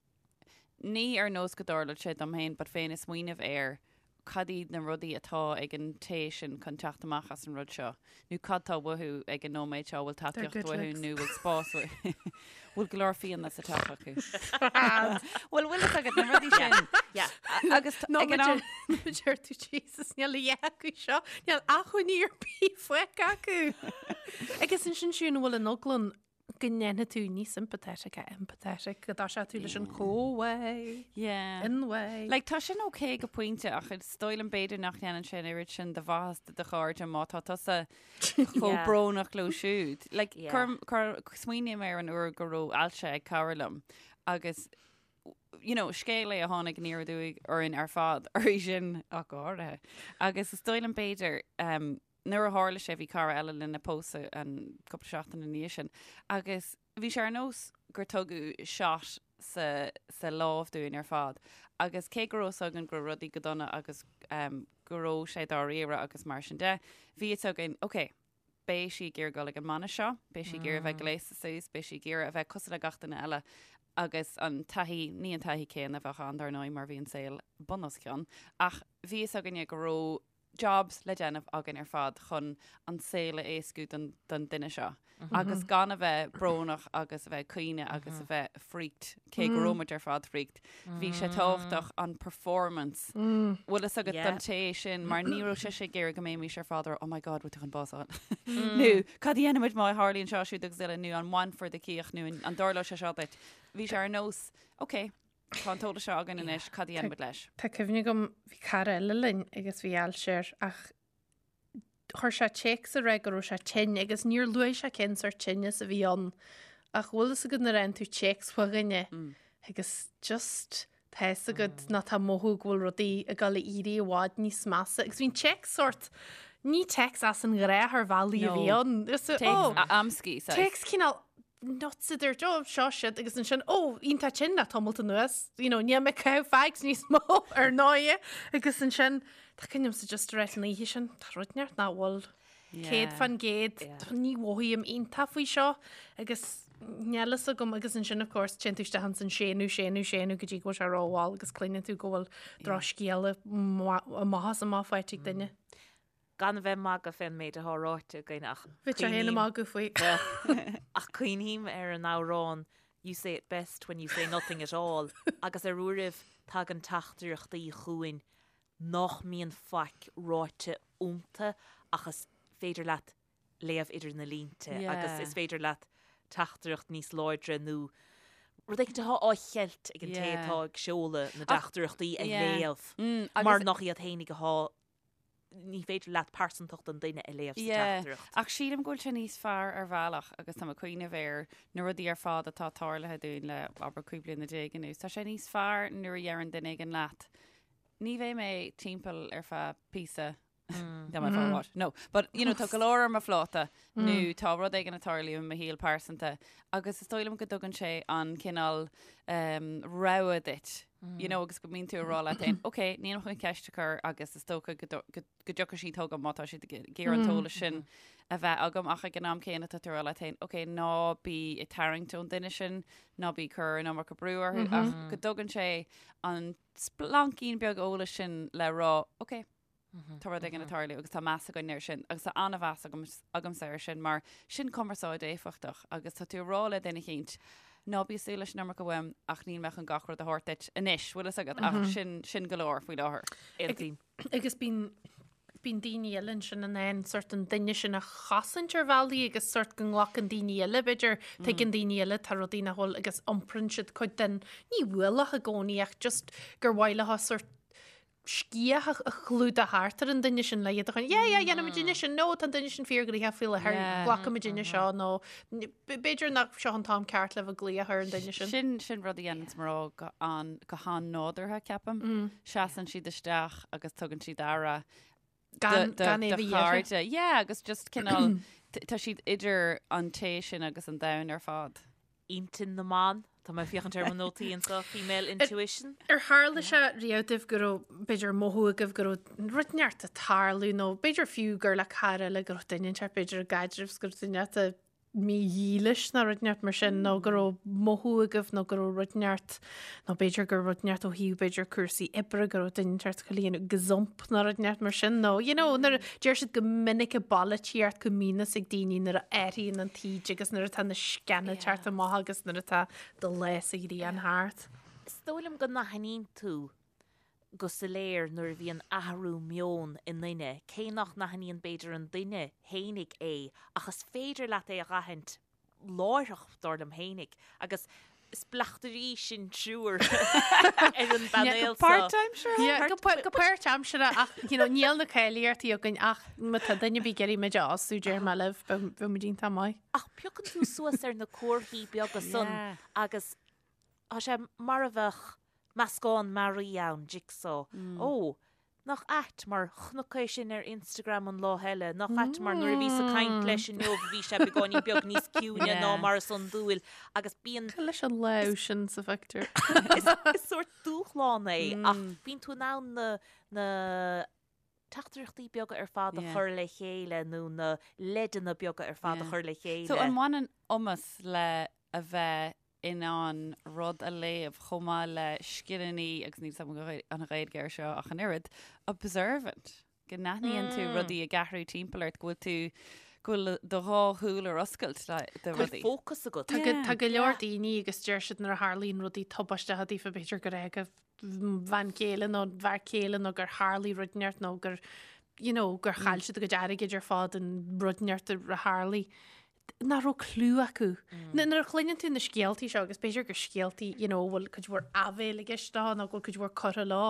ní ar nós go dtarlódh sé dom féin, but bheinn ag smaoineamh ar cad iad na rudaí atá ag an té sin chun teacht amach as an rud seo, nó cad tá uathu ag an nóiméad seo, bhfuil tacaíocht uathu nó bhfuil spás uathu, bhfuil go leor fíona sa teach acu. Bhfuil bhfuil fhios agat na rudaí sin. Agus ag an am. Deir tú Jesus níl a dhath acu seo, níl acmhainní ar bith fágtha acu. Agus ansin siúd an bhfuil an eagla ann go ndéanfaidh tú ní sympathetic a empathetic, go dtoiseoidh tú leis an go-away, Yeah. in-way. Like, tá sin ok go pointe ach is dóigh liom b'fhéidir nach ndéanann sé an oiread sin de mhaitheas do do chairde má tá tusa chomh Yeah. brónach leo siúd. Like, Yeah. cuir, cuir, smaoiním ar an uair go raibh ailse ag cara liom agus you know, scéal é a tháinig aniar aduaidh orainn ar fad, uirthi sin ach go háirithe. Agus is dóigh liom b'fhéidir um, Nuair a tharla sé bhí cara eile linn ag pósadh an cúpla seachtain ina dhiaidh sin agus bhí sé ar nós gur tugadh shot sa sa lámh dúinn ar fad agus cé go raibh fhios againn go raibh rudaí go dona agus um, go raibh sé dáiríre agus mar sin de, bhí fhios againn, ok, beidh sí ag iarraidh dul ag an mbainis seo, beidh sí ag iarraidh a bheith gléasta suas, beidh sí ag iarraidh a bheith cosúil le gach duine eile agus an taithí, ní an taithí céanna a bheadh ann dar ndóigh mar bhí an saol bun os cionn, ach bhí fhios againne go raibh jobs le déanamh againn ar fad chun an saol a éascú don, don duine seo. Agus gan a bheith brónach agus a bheith ag caoineadh agus a bheith freaked, cé go raibh muid ar fad freaked. Bhí sé tábhachtach an performance. Bhfuil fhios agat don té sin mar ní raibh sise ag iarraidh go mbeimis ar fad ar oh my god, bhfuil tú chun bás a fháil. Nó cad a dhéanfaimid má tharlaíonn seo siúd agus eile nó an mbainfear do cíoch nó an dtarlóidh sé seo duit. Bhí sé ar nós, ok, Tá an t-eolas seo againn anois, cad a dhéanfaimid leis? Tá cuimhne agam, bhí cara eile linn agus bhí ailse air ach chuir sé téacs a rá go raibh sé tinn agus níor luaigh sé cén sórt tinneas a bhí ann ach bhfuil fhios agat nuair a fhaigheann tú téacs ó dhuine agus just tá fhios agat nó tá mothú go bhfuil rudaí ag dul a éirí i bhfad níos measa agus bhí an téacs sórt ní téacs as an ghnáth ar bhealaí a bhí ann. Téacs amscaí. Téacs cineál nuts a dúirt, ó, seo siad, agus ansin, ó, iontach tinn le tamalt anuas, you know, níl mé ag caitheamh fags níos mó ar ndóigh, agus ansin, Tá cuimhne agamsa just a rá an oíche sin, tá rud inteacht nach bhfuil 100%, ní mhothaím iontach faoi seo agus níl fhios agam agus ansin of course téann tú isteach ins an séanadh, séanadh, séanadh go dtí go bhfuil sé rómhall agus cluineann tú go bhfuil drochscéala amach is amach faighte ag duine. Gan a bheith ag magadh fén méid atá ráite againn ach Bhí sé féin ag magadh faoi. Ach cuimhním ar an amhrán You say it best when you say nothing at all agus ar uairibh tagann teachtaireachtaí chugainn nach mbíonn faic ráite iontu ach is féidir leat léamh idir na línte agus is féidir leat teachtaireacht níos láidre nó rud éicint atá á cheilt ag an té atá ag seoladh na dteachtaireachtaí a léamh mar nach iad fhéinig atá ní féidir leat pearsantacht an duine a léamh sa teachtaireacht. Ach sílim go bhfuil sé níos fearr ar bhealach agus tá mé ag cuimhneamh ar na rudaí ar fad atá tarlaithe dúinn le abair 15 bliana anuas. Tá sé níos fearr nuair a deireann duine éigin leat Ní bheidh mé timpeall ar feadh píosa Dá mbeidh fá what? No, but you know, tá go leor ar mo phláta nó tá rud éigin ag tarlú i mo shaol pearsanta agus is dóigh liom go dtugann sé an cineál um, rogha duit. You know, agus go mbíonn tú ag rá leat féin, ok, nílim chun ceist a chur agus is dócha go do- go go dtiocfaidh siad chugam má tá siad ag iarraidh an t-eolas sin a bheith agam ach ag an am céanna tá tú ag rá leat féin, ok, ná bí ag tarraingt ón duine sin, ná bí ag cur an iomarca brú orthu ach go dtugann sé an splaincín beag eolais sin le rá, ok, tá rud éigin ag tarlú agus tá meas againn air sin agus tá an-mheas agamsa air sin mar sin cumarsáid éifeachtach agus tá tú ag rá le duine eicínt, ná bí ag súil leis an iomarca uaim ach níl mé chun gach rud a thabhairt duit anois, bhfuil fhios agat, ach sin, sin go leor faoi láthair. Aontaím. Agus bíonn bíonn daoine eile ansin in ann sort an duine sin a chosaint ar bhealaí agus sort go nglacann daoine eile, b'fhéidir, tuigeann daoine eile tá rudaí nach bhfuil agus iompraíonn siad cuid den, ní ualach i gcónaí ach just gur mhaith leo sort sciath a chlúdach thart ar an duine sin le iad a chun, yeah, yeah, dhéanfaimid duine sin, nó tá an duine sin fíorghnoitheach faoi láthair, glacfaimid duine seo nó b'fhéidir nach seo an t-am ceart le bheith ag glaoch ar an duine sin. Sin sin rud a dhéanann mná go an go han-nádúrtha ceapaim. Seasann siad isteach agus tugann siad aire Gan gan é do bheith iarrtha. chairde. Yeah, agus just cineál tá siad idir an té sin agus an domhan ar fad. Intinn na mban, tá mé ag féachaint ar mo nótaí anseo, female intuition. Ar tharla sé riamh daoibh go raibh, b'fhéidir, mothú agaibh go raibh rud inteacht ag tarlú nó b'fhéidir fiú gur le cara eile go raibh duine inteacht, b'fhéidir i gcaidreamh 's go raibh duine inteacht mídhílis nó rud inteacht mar sin nó go raibh mothú agaibh nó go raibh rud inteacht nó b'fhéidir gur rud inteacht ó thaobh b'fhéidir cúrsaí oibre go raibh duine inteacht ag déanamh gazump nó rud inteacht mar sin nó you know nuair a deir siad go minic i bpolaitíocht go mbíonn fhios ag daoine nuair a athraíonn an taoide agus nuair atá na sceana ag teacht amach agus nuair atá do lá sa ghrian thart. Is dóigh liom go n-aithníonn tú go soiléir nuair a bhíonn athrú meoin i nduine, cé nach n-aithníonn b'fhéidir an duine fhéinig é, ach is féidir leat é a dh'aithint láithreach, dar liom fhéinig. Agus is bleachtairí sinn triúr ar an bpainéal seo. Páirtaimseartha? Go páirtaimseartha ach you know, níl na cáilíochtaí againn ach má tá duine ar bith ag iarraidh muid a fhostú deir mé libh, beidh muid iontach maith. Ach piocann tú suas ar na comharthaí beaga san agus Tá sé mar a bheadh meascán mearaí ann, jigsaw. Ó, nach ait mar chonac é sin ar Instagram an lá eile, nach ait mar nuair a bhíos ag caint leis inniu bhí sé beagáinín beag níos ciúine ná mar is iondúil agus bíonn. Cad leis an lámh sin sa phictiúr? Is sórt dúshlán é ach bíonn tú in ann na, na teachtaireachtaí beaga ar fad a chur le chéile nó na leideanna beaga ar fad a chur le chéile. So an mbaineann iomas le a bheith in ann rud a léamh chomh maith le scileanna, agus níl 's agam an Ghaeilge air seo ach an oiread, observant, go n-aithníonn tú rudaí ag athrú timpeall ort, go bhfuil tú, go bhfuil do dhá shúil ar oscailt do Go bhfuil rudaí. fócas agat. Tá go, tá go leor daoine agus deir siad nuair a tharlaíonn rudaí tubaisteacha daofa b'fhéidir gur fhág a bhean chéile nó bhfear céile nó gur tharlaigh rud inteacht nó gur you know, gur chaill siad a gcuid airgid ar fad an rud inteacht a tharlaigh. nach raibh clue acu. Nuair a chluineann tú na scéaltaí seo, agus b'fhéidir gur scéaltaí, you know, bhfuil cuid mhór áibhéil i gceist leo nó go bhfuil cuid mhór curtha leo,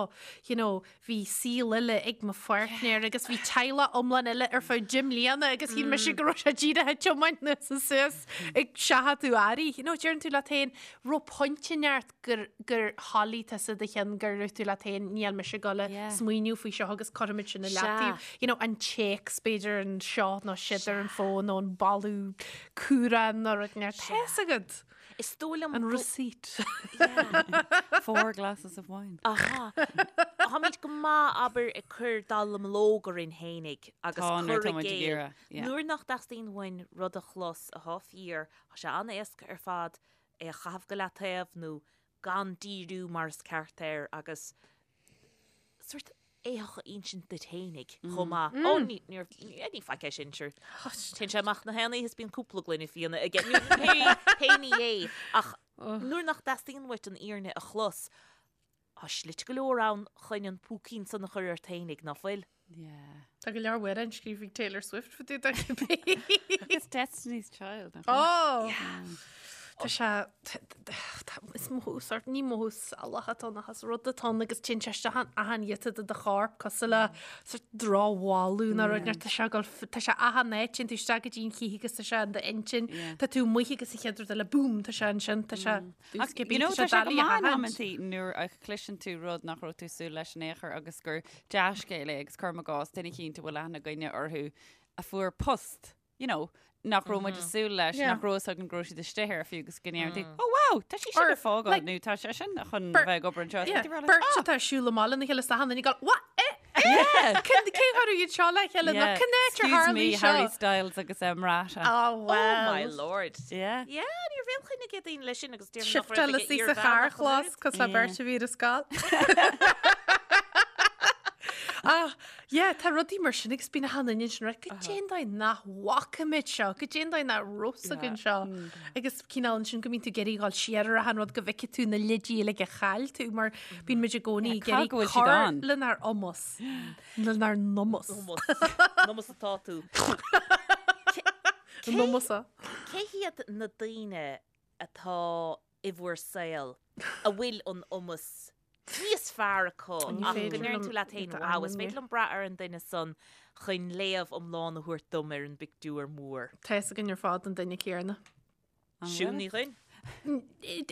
you know, bhí saol eile ag mo pháirtnéir agus bhí teaghlach iomlán eile ar feadh deich mbliana agus shíl mise go raibh sé díreach ag tiomáint anuas is suas ag seachadadh earraí. You know, deireann tú leat féin, raibh pointe inteacht gur, gur thoiligh tusa do cheann gur dhúirt tú leat féin níl mise ag dul a Yeah. smaoineamh faoi seo agus cuirfimid sin i Sea. leataobh. You know, an téacs b'fhéidir anseo nó siúd ar an fón nó an boladh cumhrán nó rud inteacht. Tá fhios agat. Is dóigh liom An receipt. Four glasses of wine. Aha. Táimid go maith, abair, ag cur dallamullóg orainn fhéinig agus Tá, nuair cur atá i muid ag gcéill. iarraidh, yeah. Nuair nach dteastaíonn uainn rud a chlos atá fíor, tá sé an-éasca ar fad é a chaitheamh go leataobh nó gan díriú mar is ceart air agus sórt éitheach a insint duit fhéinig chomh maith. Ó, ní, níor, ní faic é sin, sure. Téann sé amach na haon oíche is bíonn cúpla gloine fíona aige. Ní, pé, pé ní é. Ach nuair nach dteastaíonn uait an fhírinne a chlos, tá slite go leor ann chun an púicín san a chur ort fhéinig, ná fuil? Yeah. Tá go leor amhrán scríofa ag Taylor Swift fá dtaobh de cibé. It's Destiny's Child. nach bhfuil? Oh! Tá sé, is mothú sort, ní mothú salach atá ann ach is rud atá ann agus téann sé isteach in achan ghiota de do chorp cosúil le sort drochbholadh nó rud tá sé ag dul tá sé achan áit, téann tú isteach go dtí an chíoch agus tá sé in d'intinn, tá tú amuigh agus an chéad rud eile boom, tá sé ansin, tá sé Ach, you know, tá sé go maith in amantaí nuair a chloiseann tú rud nach raibh tú súil leis in aon chor agus gur dea-scéal é agus cuirim i gcás duine eicínt a bhfuil aithne againne orthu a fuair post, you know, nach raibh muid ag súil leis, nach raibh fhios againn go raibh siad istigh air fiú agus go ndeireann tú, oh wow, tá sí sin Or, ag fágáil like, nó tá sé sin chun beirt- bheith ag obair anseo. Yeah, Is tú like, beirt "Ah!" atá ag siúl amach lena chéile is achan duine ag gabháil, what? Eh? Yeah. Cén cé tharla iad seo le chéile nó Yeah. cén áit ar Excuse tharla me, seo? Harry Styles agus em Rata. Oh, well. Oh my lord. Yeah. Yeah, ní raibh aon chuimhne ag daoine leis sin agus déarfainn nach raibh Shiftáil ag sí sa iarmheánach an charrchlós oiread. cos le beirt a bhí ar a scoil. Ah, yeah, tá rudaí mar sin agus bíonn achan duine ansin right, goidé an dóigh nach bhfaca muid seo, goidé an dóigh nach raibh fhios againn seo. Agus cineál ansin go mbíonn tú ag iarraidh dhul siar ar achan rud go bhfeicfidh tú na leidí uilig a chaill tú mar bíonn muid i gcónaí ag Yeah, iarraidh cá go bhfuil siad cur ann? lenár iomas, lenár n-iomas. Iomas. Iomas atá tú. N-iomas. Cé hiad na daoine atá i bhur saol a bhfuil an iomas níos fearr acu Ní ach go féidir ndeireann liom tú leat féin, iad a wow, is ainmniú. féidir liom brath ar an duine san chun léamh iomlán a thabhairt dom ar an bpictiúr mór. Tá fhios againn ar fad an duine céanna. Siún Ní Dhuinn?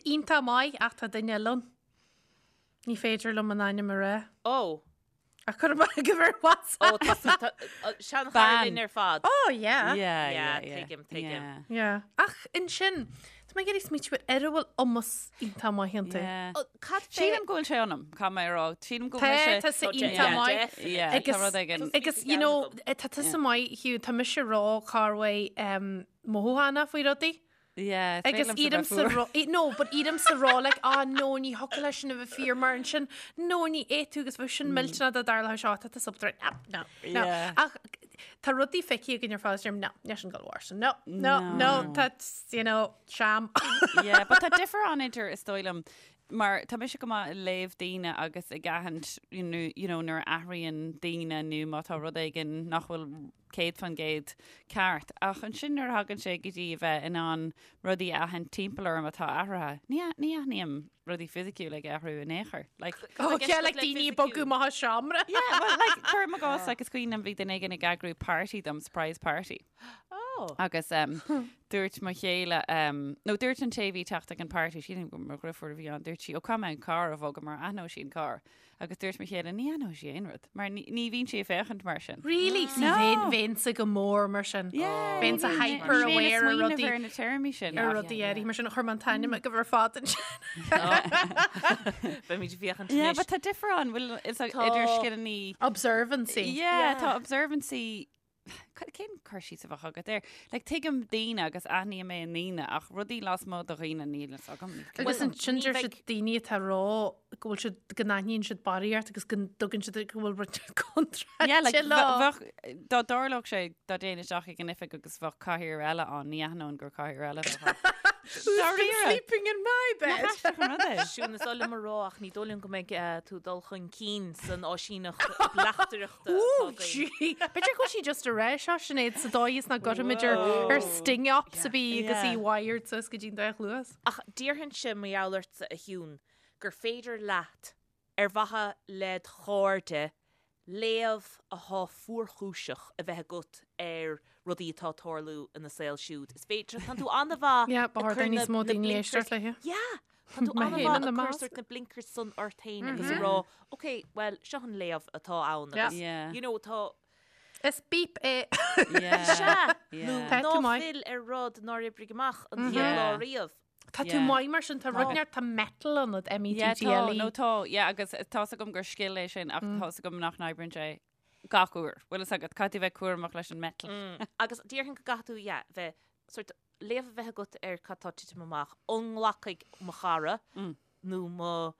Iontach maith ach tá duine eile ann. Ní féidir liom an ainm a rá. Ó, Ach cuir amach go bhfuil WhatsApp. ó, tá sí- tá- ó, seanchara Bean. linn ar fad. Oh, yeah. Yeah, Yeah, yeah, yeah. tuigim, tuigim. Yeah. Yeah. Ach ansin, tá mé ag iarraidh smaoitiú ar ar a bhfuil iomas iontach maith iontu. Yeah. Ó, Cad fé Sílim go bhfuil sé ionam, caithfidh mé a rá. Sílim go Tá, bhfuil sé... tá sé Tá sé- iontach yeah, maith. definitely. Yeah, tá Agus- rud éigin. Agus, you know, tá tusa maith, Hugh, tá mise ró-chorrmhaith um, mothúchánach faoi rudaí. Yeah, is Agus féidir liomsa iarraimsa bheith rá, no, but iarraimsa rá, like, ah, no, ní thiocfadh leis sin a bheith fíor mar ansin, no, ní fhéadfadh tú agus bheadh sin millteanach dá dtarlódh seo, tá tú sub no, no, no. Yeah. Ach tá rudaí feicthe againn ar fad, deirim, no, níl sin ag gabháil a tharlú, no, no, no, that's, you know, sham. Yeah, but tá difear ann idir is dóigh liom mar tá mise go maith ag léamh daoine agus ag aithint you know, you know, nuair a athraíonn daoine nó má tá rud éigin nach bhfuil 100% ceart. Ach ansin nuair a thagann sé go dtí a bheith in ann rudaí a aithint timpeall orm atá athraithe, ní ní aithním rudaí fisiciúla ag athrú in aon chor. Like, Oh, Like, yeah, like like daoine fisiciúil. bogadh amach as seomra. yeah, well, like, cuirim i gcás, like, is cuimhin liom bhí duine éigin ag eagrú party dom, surprise party. Oh. Agus um, dúirt mo chéile, um, nó dúirt an té a bhí ag teacht ag an party, sílim gur mo dheirfiúr a bhí ann, dúirt sí, ó caithfidh mé an carr a bhogadh mar aithneoidh sí an carr. Agus dúirt mo chéile, ní aithneoidh sí aon rud, mar ní, ní bhíonn sí ag féachaint mar sin. Really? See, No. bheinn, bheinnse go mór mar sin. Yeah, Bheinnse ní bhíonn- hyper ní bhíonn ag aware ar smaoineamh rudaí- ar na téarmaí sin. Ar ach- rudaí áirithe mar sin chuir mé an t-ainm agaibh ar fad ansin. Beimid ag féachaint Yeah, anois. but tá difear ann, bhfuil is Tá- idir scileanna Observancy. Yeah, tá observancy Cén cur síos a bheadh agat air? Like, tuigim daoine agus aithním mé i ndaoine ach rudaí lasmuigh de dhaoine níl fhios agam. Agus ansin ní deir bheidh- siad daoine atá ag rá go bhfuil siad, go n-aithníonn siad barraíocht agus go dtugann siad go bhfuil rud contráilte Yeah, like, leo. bheadh, dá dtarlódh sé dá dtéinn isteach ag an oifig agus bheadh cathaoir eile ann, ní aithneoinn gur cathaoir eile a bheadh ann. Who's been Dáiríre. sleeping in my bed? Nach aisteach an rud é? Siún, is oth liom a rá ach ní dóigh liom go mbeidh tú ag dul chun cinn san áisíneacht bleachtaireachta atá Ooh, againn. gee. B'fhéidir go bhfuil sí just ag rá seo, Sinéad, sa dóigh is nach gcuirfimid ar ar sting ops a bhí agus í Yeah. wired suas go dtí'n dá chluas. Ach déarfainnse mar gheall ortsa, a Shiún, gur féidir leat ar mhaithe led chairde, léamh athá fuarchúiseach a bheith agat ar rudaí atá ag tarlú ina saol siúd. Is féidir, tánn tú an-mhaith Yeah, ba ag chóir cur do níos na- mó na daoine blinkers- éisteacht léi. Yeah! Tánn tú Mé féin an-mhaith ina ag cur measc. sort na blinkers san ort féin agus ag rá, ok, well, seo an léamh atá ann Yeah. agus, Yeah. you know, tá, Is beep é. Yeah. Sea! Yeah. Nó Tá tú ná maith. fill ar rud nár oibrigh amach an chéad Yeah. lá riamh. Tá tú maith mar sin, tá rud neart, tá mettle ionat, M-E-T-T-L-E. Nó tá, yeah, agus tá's agam gur scil é sin ach tá's agam nach n-oibríonn sé gach uair. Bhfuil fhios agat, caithfidh tú bheith cúramach leis an mettle. Agus déarfainn go gcaithfidh tú, yeah, bheith sort léamh a bheith agat ar cad tá ag titim amach. An nglacfaidh mo chara nó mo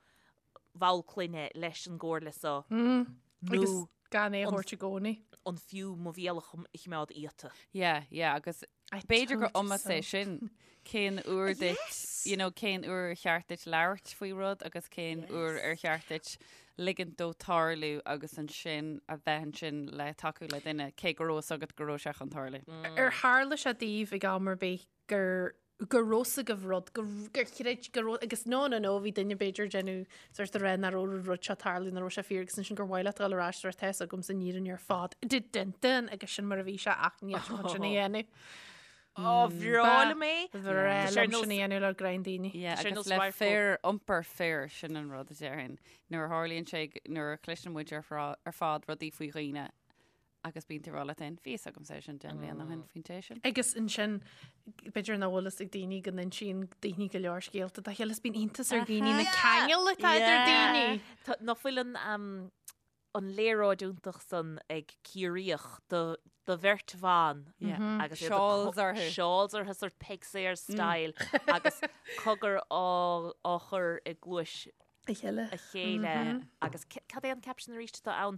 bhall clainne leis an gcomhairle so nó gan é a thabhairt i gcónaí. An fiú mo bhéal a choimeád iata. Yeah, yeah, agus b'fhéidir gur iomas é sin cén uair duit, you know, cén uair ar cheart duit labhairt faoi rud agus cén uair ar cheart duit ligint dó tarlú agus ansin a bheith ansin le tacú le duine cé go raibh fhios agat go raibh sé chun tarlú. Ar tharla sé daoibh ag am ar bith gur go raibh fhios agaibh rud, gur chreid, go raibh, agus no, no, no, bhí duine b'fhéidir ag déanamh sort of rá nach raibh an rud seo ag tarlú, nach raibh sé fíor agus ansin gur mhaith leat dul ar ais tá fhios agamsa an fhírinne ar fad, dun dun dun, agus sin mar a bhí sé ach níl sé chun sin a dhéanamh. Ó, bhreá liom é. Bhreá liom sin a dhéanamh le greim daoine. Yeah, agus le fir, iompar fir, sin an rud a déarfainn. Nuair a tharlaíonn sé, nuair a chloiseann muid ar fad rudaí faoi dhaoine, Agus bíonn tú ag rá leat féin, bhí fhios agamsa é sin 10 mbliana ó shin faoin té sin. Agus ansin, b'fhéidir nach bhfuil fhios ag daoine go n-insíonn daoine go leor scéalta dá chéile, is bíonn iontas ar dhaoine na ceangail atá idir daoine. Tá, nach bhfuil an, an léaráid iontach san ag Ciarraíoch do, do bheirt bhan agus iad ag Shawls orthu. Shawls orthu, sort Peig Sayers style agus cogar á, á chur i gcluais a chéile. a chéile agus cad é an caption arís atá ann?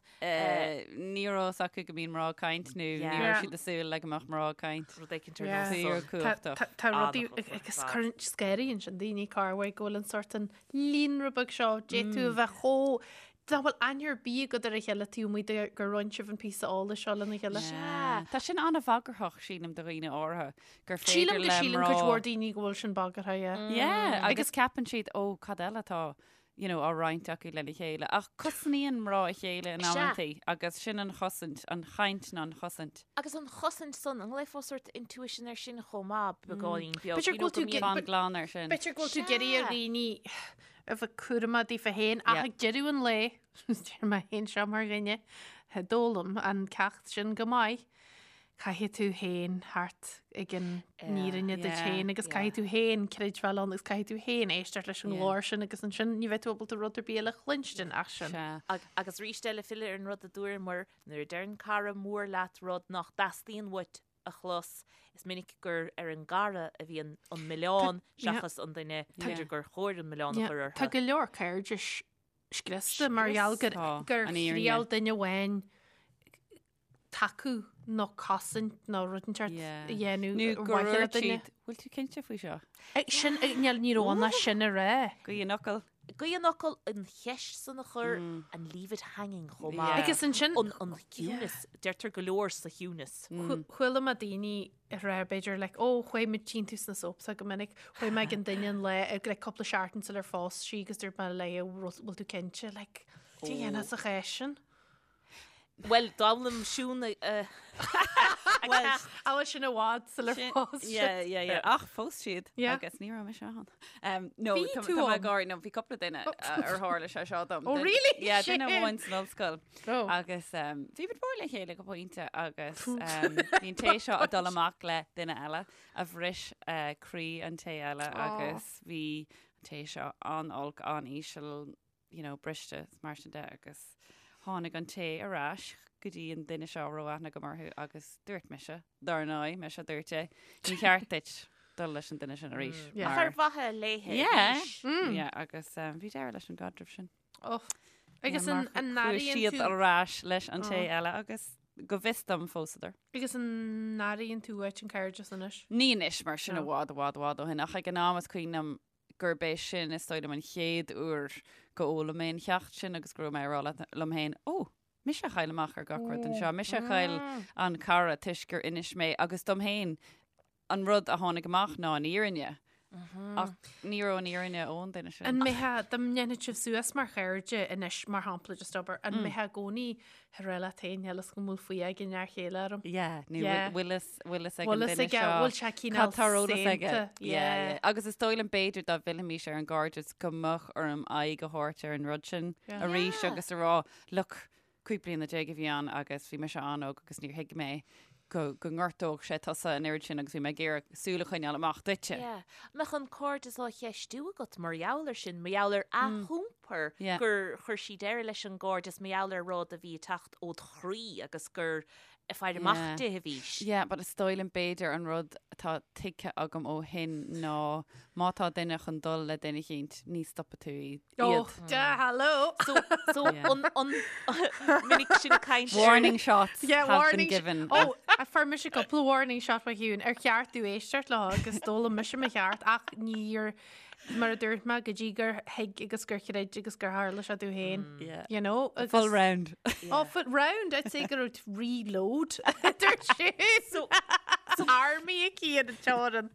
Ní raibh fhios acu go mbíonn mná ag caint nó ní raibh siad ag súil le go mbeadh mná ag caint. Rud éicint ar nós san. Fíorchumhachtach. Tá rudaí agus cuireann scanraíonn sin daoine corruair go bhfuil an sort an líonra beag seo d'fhéadfadh a bheith chomh nach bhfuil aithne ar bith agat ar a chéile taobh amuigh de gur roinn sibh an píosa eolais seo lena chéile. Tá sin an-bhagarthach sílim do dhaoine áirithe. gur féidir Sílim go le síleann mná cuid mhór daoine go bhfuil sin bagartha, yeah. Yeah, agus ceapann siad, ó, cad eile atá, you know, á roinnt acu lena chéile. Ach cosnaíonn mná a chéile in Sea. amantaí agus sin an chosaint, an chaint ná an chosaint. Agus an chosaint san, an nglaofá sort intuition air sin chomh maith, beagáinín beag, B'fhéidir you go know, bhfuil tú go mbíonn- Fan glan air sin. B'fhéidir go bhfuil tú ag iarraidh ar dhaoine a bheith cúramach daofa féin ach Yeah. ag deireadh an lae, deir mé féin seo mar dhuine, a d'fhoghlaim an ceacht sin go maith, Caithfidh tú féin theacht ag an fhírinne duit féin agus caithfidh tú féin creidbheáil ann agus caithfidh tú féin éisteacht leis an nglór sin agus ansin ní bheidh tú ábalta rud ar bith eile a chluinstin ach sin. Agus arís eile filleadh ar an rud a dúramar, nuair a deireann cara mór leat rud nach dteastaíonn uait a chlos, is minic gur ar an gcara a bhíonn an milleán seachas an duine, b'fhéidir gur chóir an milleán a chur orthu. Tá go leor cairdis scriosta mar gheall gur thriail duine amháin tacú nó cosaint nó rud inteacht a dhéanamh Nó ar gur mhaithe le dúirt duine. siad, bhfuil tú cinnte faoi seo? Sin, níl, ní raibh ann ach sin a rá. Gaoth an fhocail. Gaoth an fhocail, an cheist san a chur and leave it hanging chomh maith. Agus ansin. An, an ciúnas, deirtear go leor sa chiúnas. Chuala mé daoine ag rá b'fhéidir like, ó, chuaigh mé, tchíonn tú sna soaps go minic, chuaigh mé ag an duine an lá, ag like cúpla seachtain sular phós sí agus dúirt mé léi, bhfuil tú cinnte, like, cad a dhéanfá sa chás sin? Bhuel, d'fhoghlaim Siún a Bhuel, bhfuil sin i bhfad sular phós siad. Yeah, yeah, yeah. Ach phós siad agus ní raibh mise ann. Um, no, Bhí tá tú tá mé ann. ag gáirí, no, bhí cúpla duine ar tharla sé seo dom. Oh, really? Yeah, duine Shame. amháin san ollscoil. Oh. Agus um, bhí muid mór le chéile go pointe agus um, bhí an té seo ag dul amach le duine eile a bhris uh, croí an té eile agus bhí an té seo an-olc, an-íseal, you know, briste is mar sin de agus tháinig an té ar ais go dtí an duine seo a raibh aithne agam orthu agus dúirt mise, dar ndóigh, mise a dúirt é, ní cheart duit dul leis an duine sin arís. Yeah. Ach ar mhaithe léithe Yeah. arís. Yeah, agus um, bhí deireadh leis an gcaidreamh sin. Oh. Agus Yeah, an mar an chuaigh n-airíonn siad tú ar ais leis an té eile agus go bhfios dom phósadar. agus an n-airíonn tú uait an cairdeas anois? Ní anois mar sin No. i bhfad, i bhfad, i bhfad ó shin ach ag an am is cuimhin liom gurb é sin is dóigh liom an chéad uair go bhfoghlaim mé an cheacht sin agus go raibh mé ag rá liom féin, ó, mise a chaill amach ar gach rud anseo, mise a chaill an cara toisc gur inis mé agus dom féin an rud a tháinig amach ná an fhírinne. Ach ní raibh an fhírinne ón duine sin. An mbeifeá, dá ndéanfadh sibh suas mar chairde anois, mar shampla, just abair, an mbeifeá i gcónaí ag rá leat féin, níl fhios go bhfuil faoi ag an fhear chéile orm. Yeah, nó Yeah. bhfuil fhios bhfuil fhios ag an Bhfuil fhios duine aige, seo bhfuil sé cineál cad tá ar eolas aige. saonta. Yeah, Yeah. yeah. Agus is dóigh liom b'fhéidir dá bhfillfimis ar an gcairdeas go mbeadh orm aghaidh a thabhairt ar an rud sin Yeah. arís Yeah. agus a rá, look, 15 bliana a bhí ann agus bhí mise an-óg agus níor thuig mé. go go ngortódh sé tusa an oiread sin agus bhí mé ag iarraidh súil a choinneáil amach duitse. Yeah. Mbeadh an cairdeas á cheistiú agat mar gheall air sin, mar gheall ar a hiompar Yeah. gur chuir sí deireadh leis an gcairdeas, mar gheall ar rud a bhí ag teacht ód chroí agus gur ag faire amach Yeah. di a bhís. Yeah, but is dóigh liom b'fhéidir an rud atá tuigthe agam ó shin ná má tá duine chun dul le duine eicínt, ní stopfaidh tú iad. Oh, yeah, hello. So, so Yeah. an, an, minic sinn ag caint ar- Warning shots Yeah, have been warning sh- given. Oh, a fuair mise cúpla warning shot ó Shiún ar cheart domh éisteacht leo agus d'fhoghlaim mise mo cheart ach níor mar a dúirt mé go dtí gur thuig agus gur chreid agus gur tharla sé domh féin. Yeah. You know? Agus, Full round. Oh, full round. I'd say go raibh reload. Dúirt sé. So, so army aici ar an teorainn.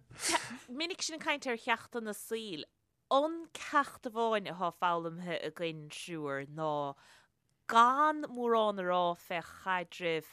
Minic sinn ag caint ar cheachtanna saoil. An ceacht amháin atá foghlamtha againn triúr ná gan mórán a rá fé chaidrimh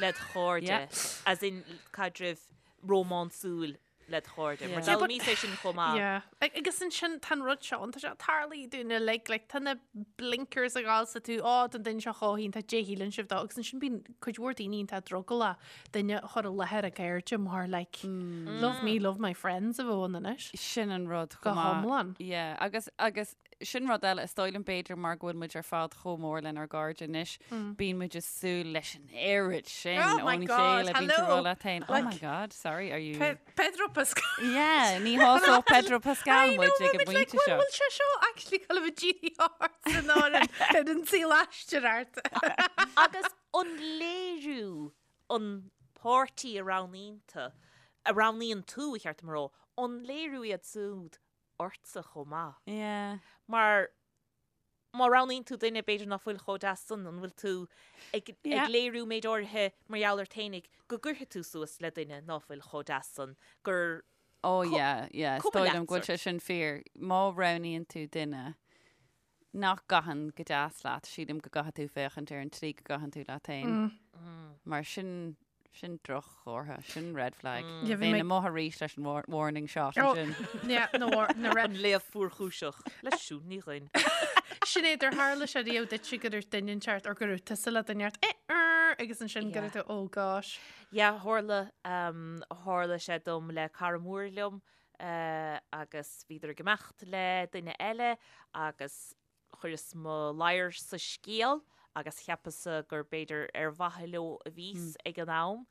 led chairde, as in caidrimh rómánsúil led chairde, mar d'fhoghlaimíos é sin chomh maith. Yeah. Agus ansin tá an rud seo ann, tá sé ag tarlú dúinn uilig, like, tá na blinkers ag gabháil 's tú, á, tá an duine seo chomh hiontach, dé shíleann sibh dó, agus ansin bíonn cuid mhór daoine iontach drogallach duine a chur i láthair a gcairde mar like, love me, love my friends a bheadh ann anois. Sin an rud Go chomh maith. hiomlán. Yeah, agus, agus sin rud eile, is dóigh liom b'fhéidir mar go bhfuil muid ar fad chomh mór lenár gcairde anois, bíonn muid ag súil leis an oiread sin Oh my ón God, chéile, bíonn tú hello. rá leat féin, oh Like- my God, sorry, are you... Pe Pedro Pascal. Yeah, ní shásódh Pedro Pascal I know, muid ag an but like, bpointe seo. bhfuil sé seo actually ag dul a bheith dírithe ort san áireamh ar an saol aistear ort. Agus an léiriú an páirtí a roghnaíonn tú, a roghnaíonn tú, ba cheart dom a rá, an léiriú iad siúd ortsa chomh maith? Yeah. Mar má roghnaíonn tú duine b'fhéidir ná fuil chomh deas san, an bhfuil tú ag, Yeah. ag léiriú méid áirithe mar gheall ort fhéinig go gcuirfidh tú suas le duine ná fuil chomh deas san, gur Oh yeah, yeah, is cuma dóigh leat liom go bhfuil sort. sé sin fíor. Má roghnaíonn tú duine nach gcaitheann go deas leat, sílim go gcaithfidh tú féachaint ar an tslí go gcaitheann tú leat féin. Mar sin, sin droch-chomhartha, sin red flag. Yeah, bhí Bheinn mé- amuigh arís leis an war- warning shot Oh, ansin. yeah, na war- na red An léamh fuarchúiseach le Siún Ní Dhuinn. Sinéad, ar tharla sé riamh duitse go raibh duine inteacht or go raibh tusa le duine inteacht, eh, er, agus ansin go Yeah. raibh tú, oh gosh. Yeah, tharla, um, tharla sé dom le cara mór liom agus bhíodar ag imeacht le duine eile agus chuireas mo ladhar sa scéal agus cheapas-sa gur b'fhéidir ar mhaithe leo a bhíos ag an am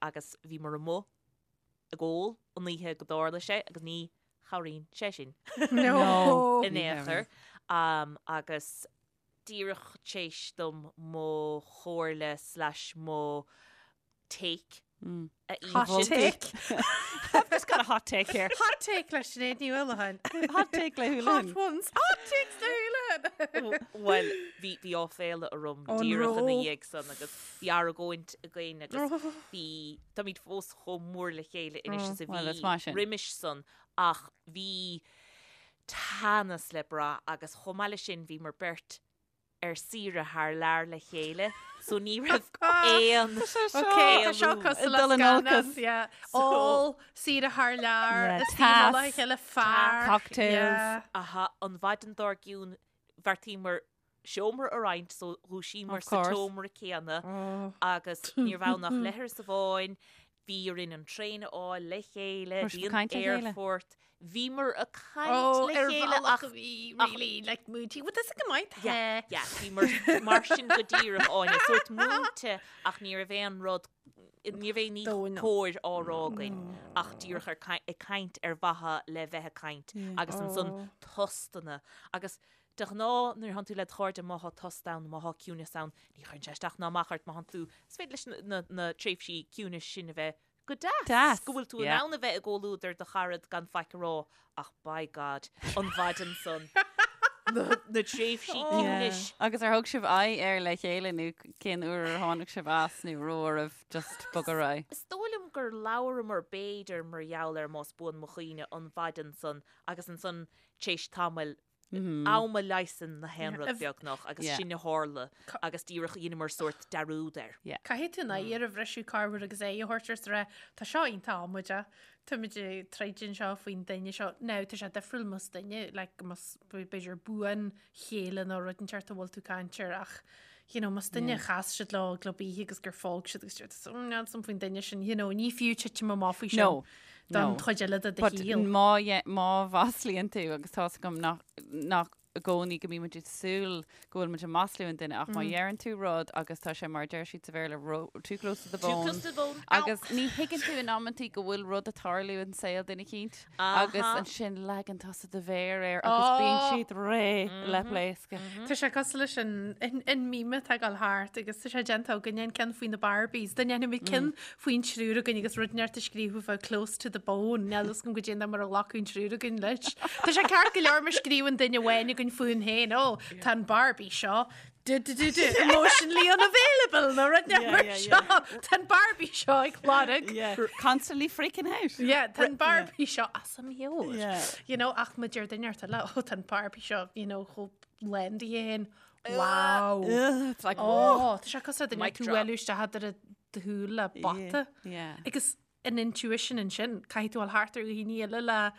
agus bhíomar amuigh ag ól an oíche go dtarla sé agus ní chabhraíonn sé sin in aon chor agus díreach t'éis dom mo chomhairle slash mo take a Hot insint. take. I've just got a hot take here. Hot take le Sinéad Ní Uallacháin. Hot take le Hot Houlihan. ones. Hot takes le Houlihan. Bhuel, bhí bhí áiféala orm An díreach ina raibh? dhiaidh san agus bhí argóint againn agus bhí táimid fós chomh mór le chéile anois is a Well, is bhí maith sin. roimis san ach bhí teannas le brath agus chomh maith leis sin bhíomar beirt ar saoire thar lear le chéile so ní raibh aon Ok, tá seo cosúil le Dul in scannán, olcas. yeah. Ól, saoire thar lear, Yeah, is taobh le tas, chéile fear. cocktails. Yeah. Aha, an mhaidin dár gcionn bheartaíomar seomra a roinnt so dhúisíomar Of sa course. tseomra céanna Oh. agus ní raibh ann ach leithreas amháin, bhí orainn an traein a fháil le chéile, Raibh sibh bhí ag an caint le chéile? aerfort, bhíomar ag caint Oh, le ar chéile bhealach ach a bhí really like múinte. Well, that's go maith. Yeah, yeah, bhíomar mar sin go díreach Áine, sórt múinte ach ní raibh aon rud, ní raibh aon ní Dóigh ná. cóir á rá againn ach díreach ar ag caint ar mhaithe le bheith ag caint agus ansan Oh. tostanna agus de ghnáth nuair a thánn tú le do chairde má thá tost ann, má thá ciúnas ann, ní chuireann sé isteach ná amach ort má thánn tú, is féidir leis na, na tréimhsí ciúnais sin a bheith go deas, Deas, go bhfuil tú in yeah. ann a bheith i gcomhluadar do charad gan faic a rá ach by God, an mhaidin san, na, na tréimhsí ciúnais. Agus ar thug sibh aghaidh air le chéile nó cén uair ar tháinig sibh as nó raibh oraibh just bogadh ar aghaidh? Is dóigh liom gur labhramar b'fhéidir mar gheall air más buan mo chuimhne an mhaidin san agus ansan t'éis tamaill Am a leigheasann na haon rud beagnach agus sin a tharla agus díreach dheineamar sórt dearúd air. Caithfidh tú an oighear a bhriseadh corruair agus aghaidh a thabhairt air is a rá, tá seo iontach amaideach, táimid ag troid anseo faoin duine seo. Now, tá sé difriúil más duine, like, más b'fhéidir buanchéile nó rud inteacht a bhfuil tú ag caint air ach, You know, más duine a chas siad leo i gclub oíche agus gur fág siad agus deir tú, "Mm, níl 'fhios a'm faoin duine sin, you know, ní fiú titim amach faoi sin No, don no. chuid eile de do But shaol. má dhe- má mhaslaíonn tú agus tá's agam nach nach i gcónaí go mbíonn muid ag súil go bhfuil muid ag maslú an duine ach má dheireann tú rud agus tá sé mar a deir siad sa Bhéarla ro- too close to the Too bone close to the bone. Ow. agus ní thuigeann tú in amantaí go bhfuil rud ag tarlú in saol duine eicínt agus Aha. ansin leagann tusa do mhéar air agus bíonn Oh. siad réidh le pléascadh. Tá sé cosúil leis an an meme atá ag dul thart agus tá sé déanta againn an ceann faoi na Barbies. Dá ndéanfaimid ceann faoin triúr againn agus rud inteacht a scríobhadh bheadh close to the bone. Níl fhios agam goidé mar a ghlacadh an triúr againn leis. Tá sé ceart go leor má scríobhann duine amháin againn fúinn féin, ó, tá an Barbie seo du du du du emotionally unavailable nó rud inteacht mar seo. Tá an Barbie seo ag lorg. Constantly freaking out. Yeah, tá an Barbie seo as a meabhair. Yeah. You know, ach má deir duine inteacht eile, ó, tá an Barbie seo, you know, chomh lán di féin. Wow. Ugh, it's like, Ó, tá sé cosúil le duine Mic tú drop. bhualadh isteach idir do shúil le bata. Yeah. Agus an intuition ansin, caithfidh tú dul thart ar dhaoine eile le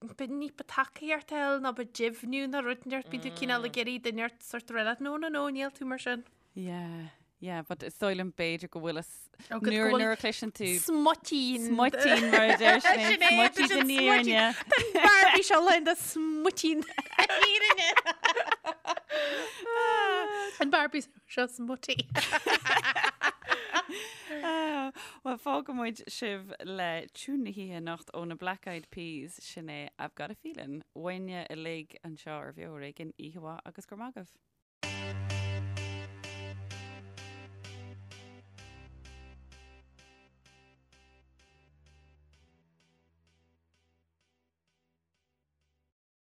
b'fhéidir ní ba tacaíocht a fháil nó ba deimhniú nó rud inteacht, bíonn tú cineál ag iarraidh duine inteacht sort of rá leat, no, no, no, níl tú mar sin. Yeah, yeah, but is dóigh liom b'fhéidir go bhfuil a s- Ó, go- go nuair bhfuil nuair a chloiseann tú Smuitín. smuitín mar a deir Sin Sinéad, é, smuitín sin den smuitín. fhírinne. Barbie seo lán de smuitín fhírinne. An Barbie seo smutty. Ah, Well, fágfaidh muid sibh le tiún na hoíche anocht ó na Black Eyed Peas, sin é I've Got a Feeling. Uainne uilig anseo ar Bheo Ar Éigean, oíche mhaith agus go raibh maith agaibh.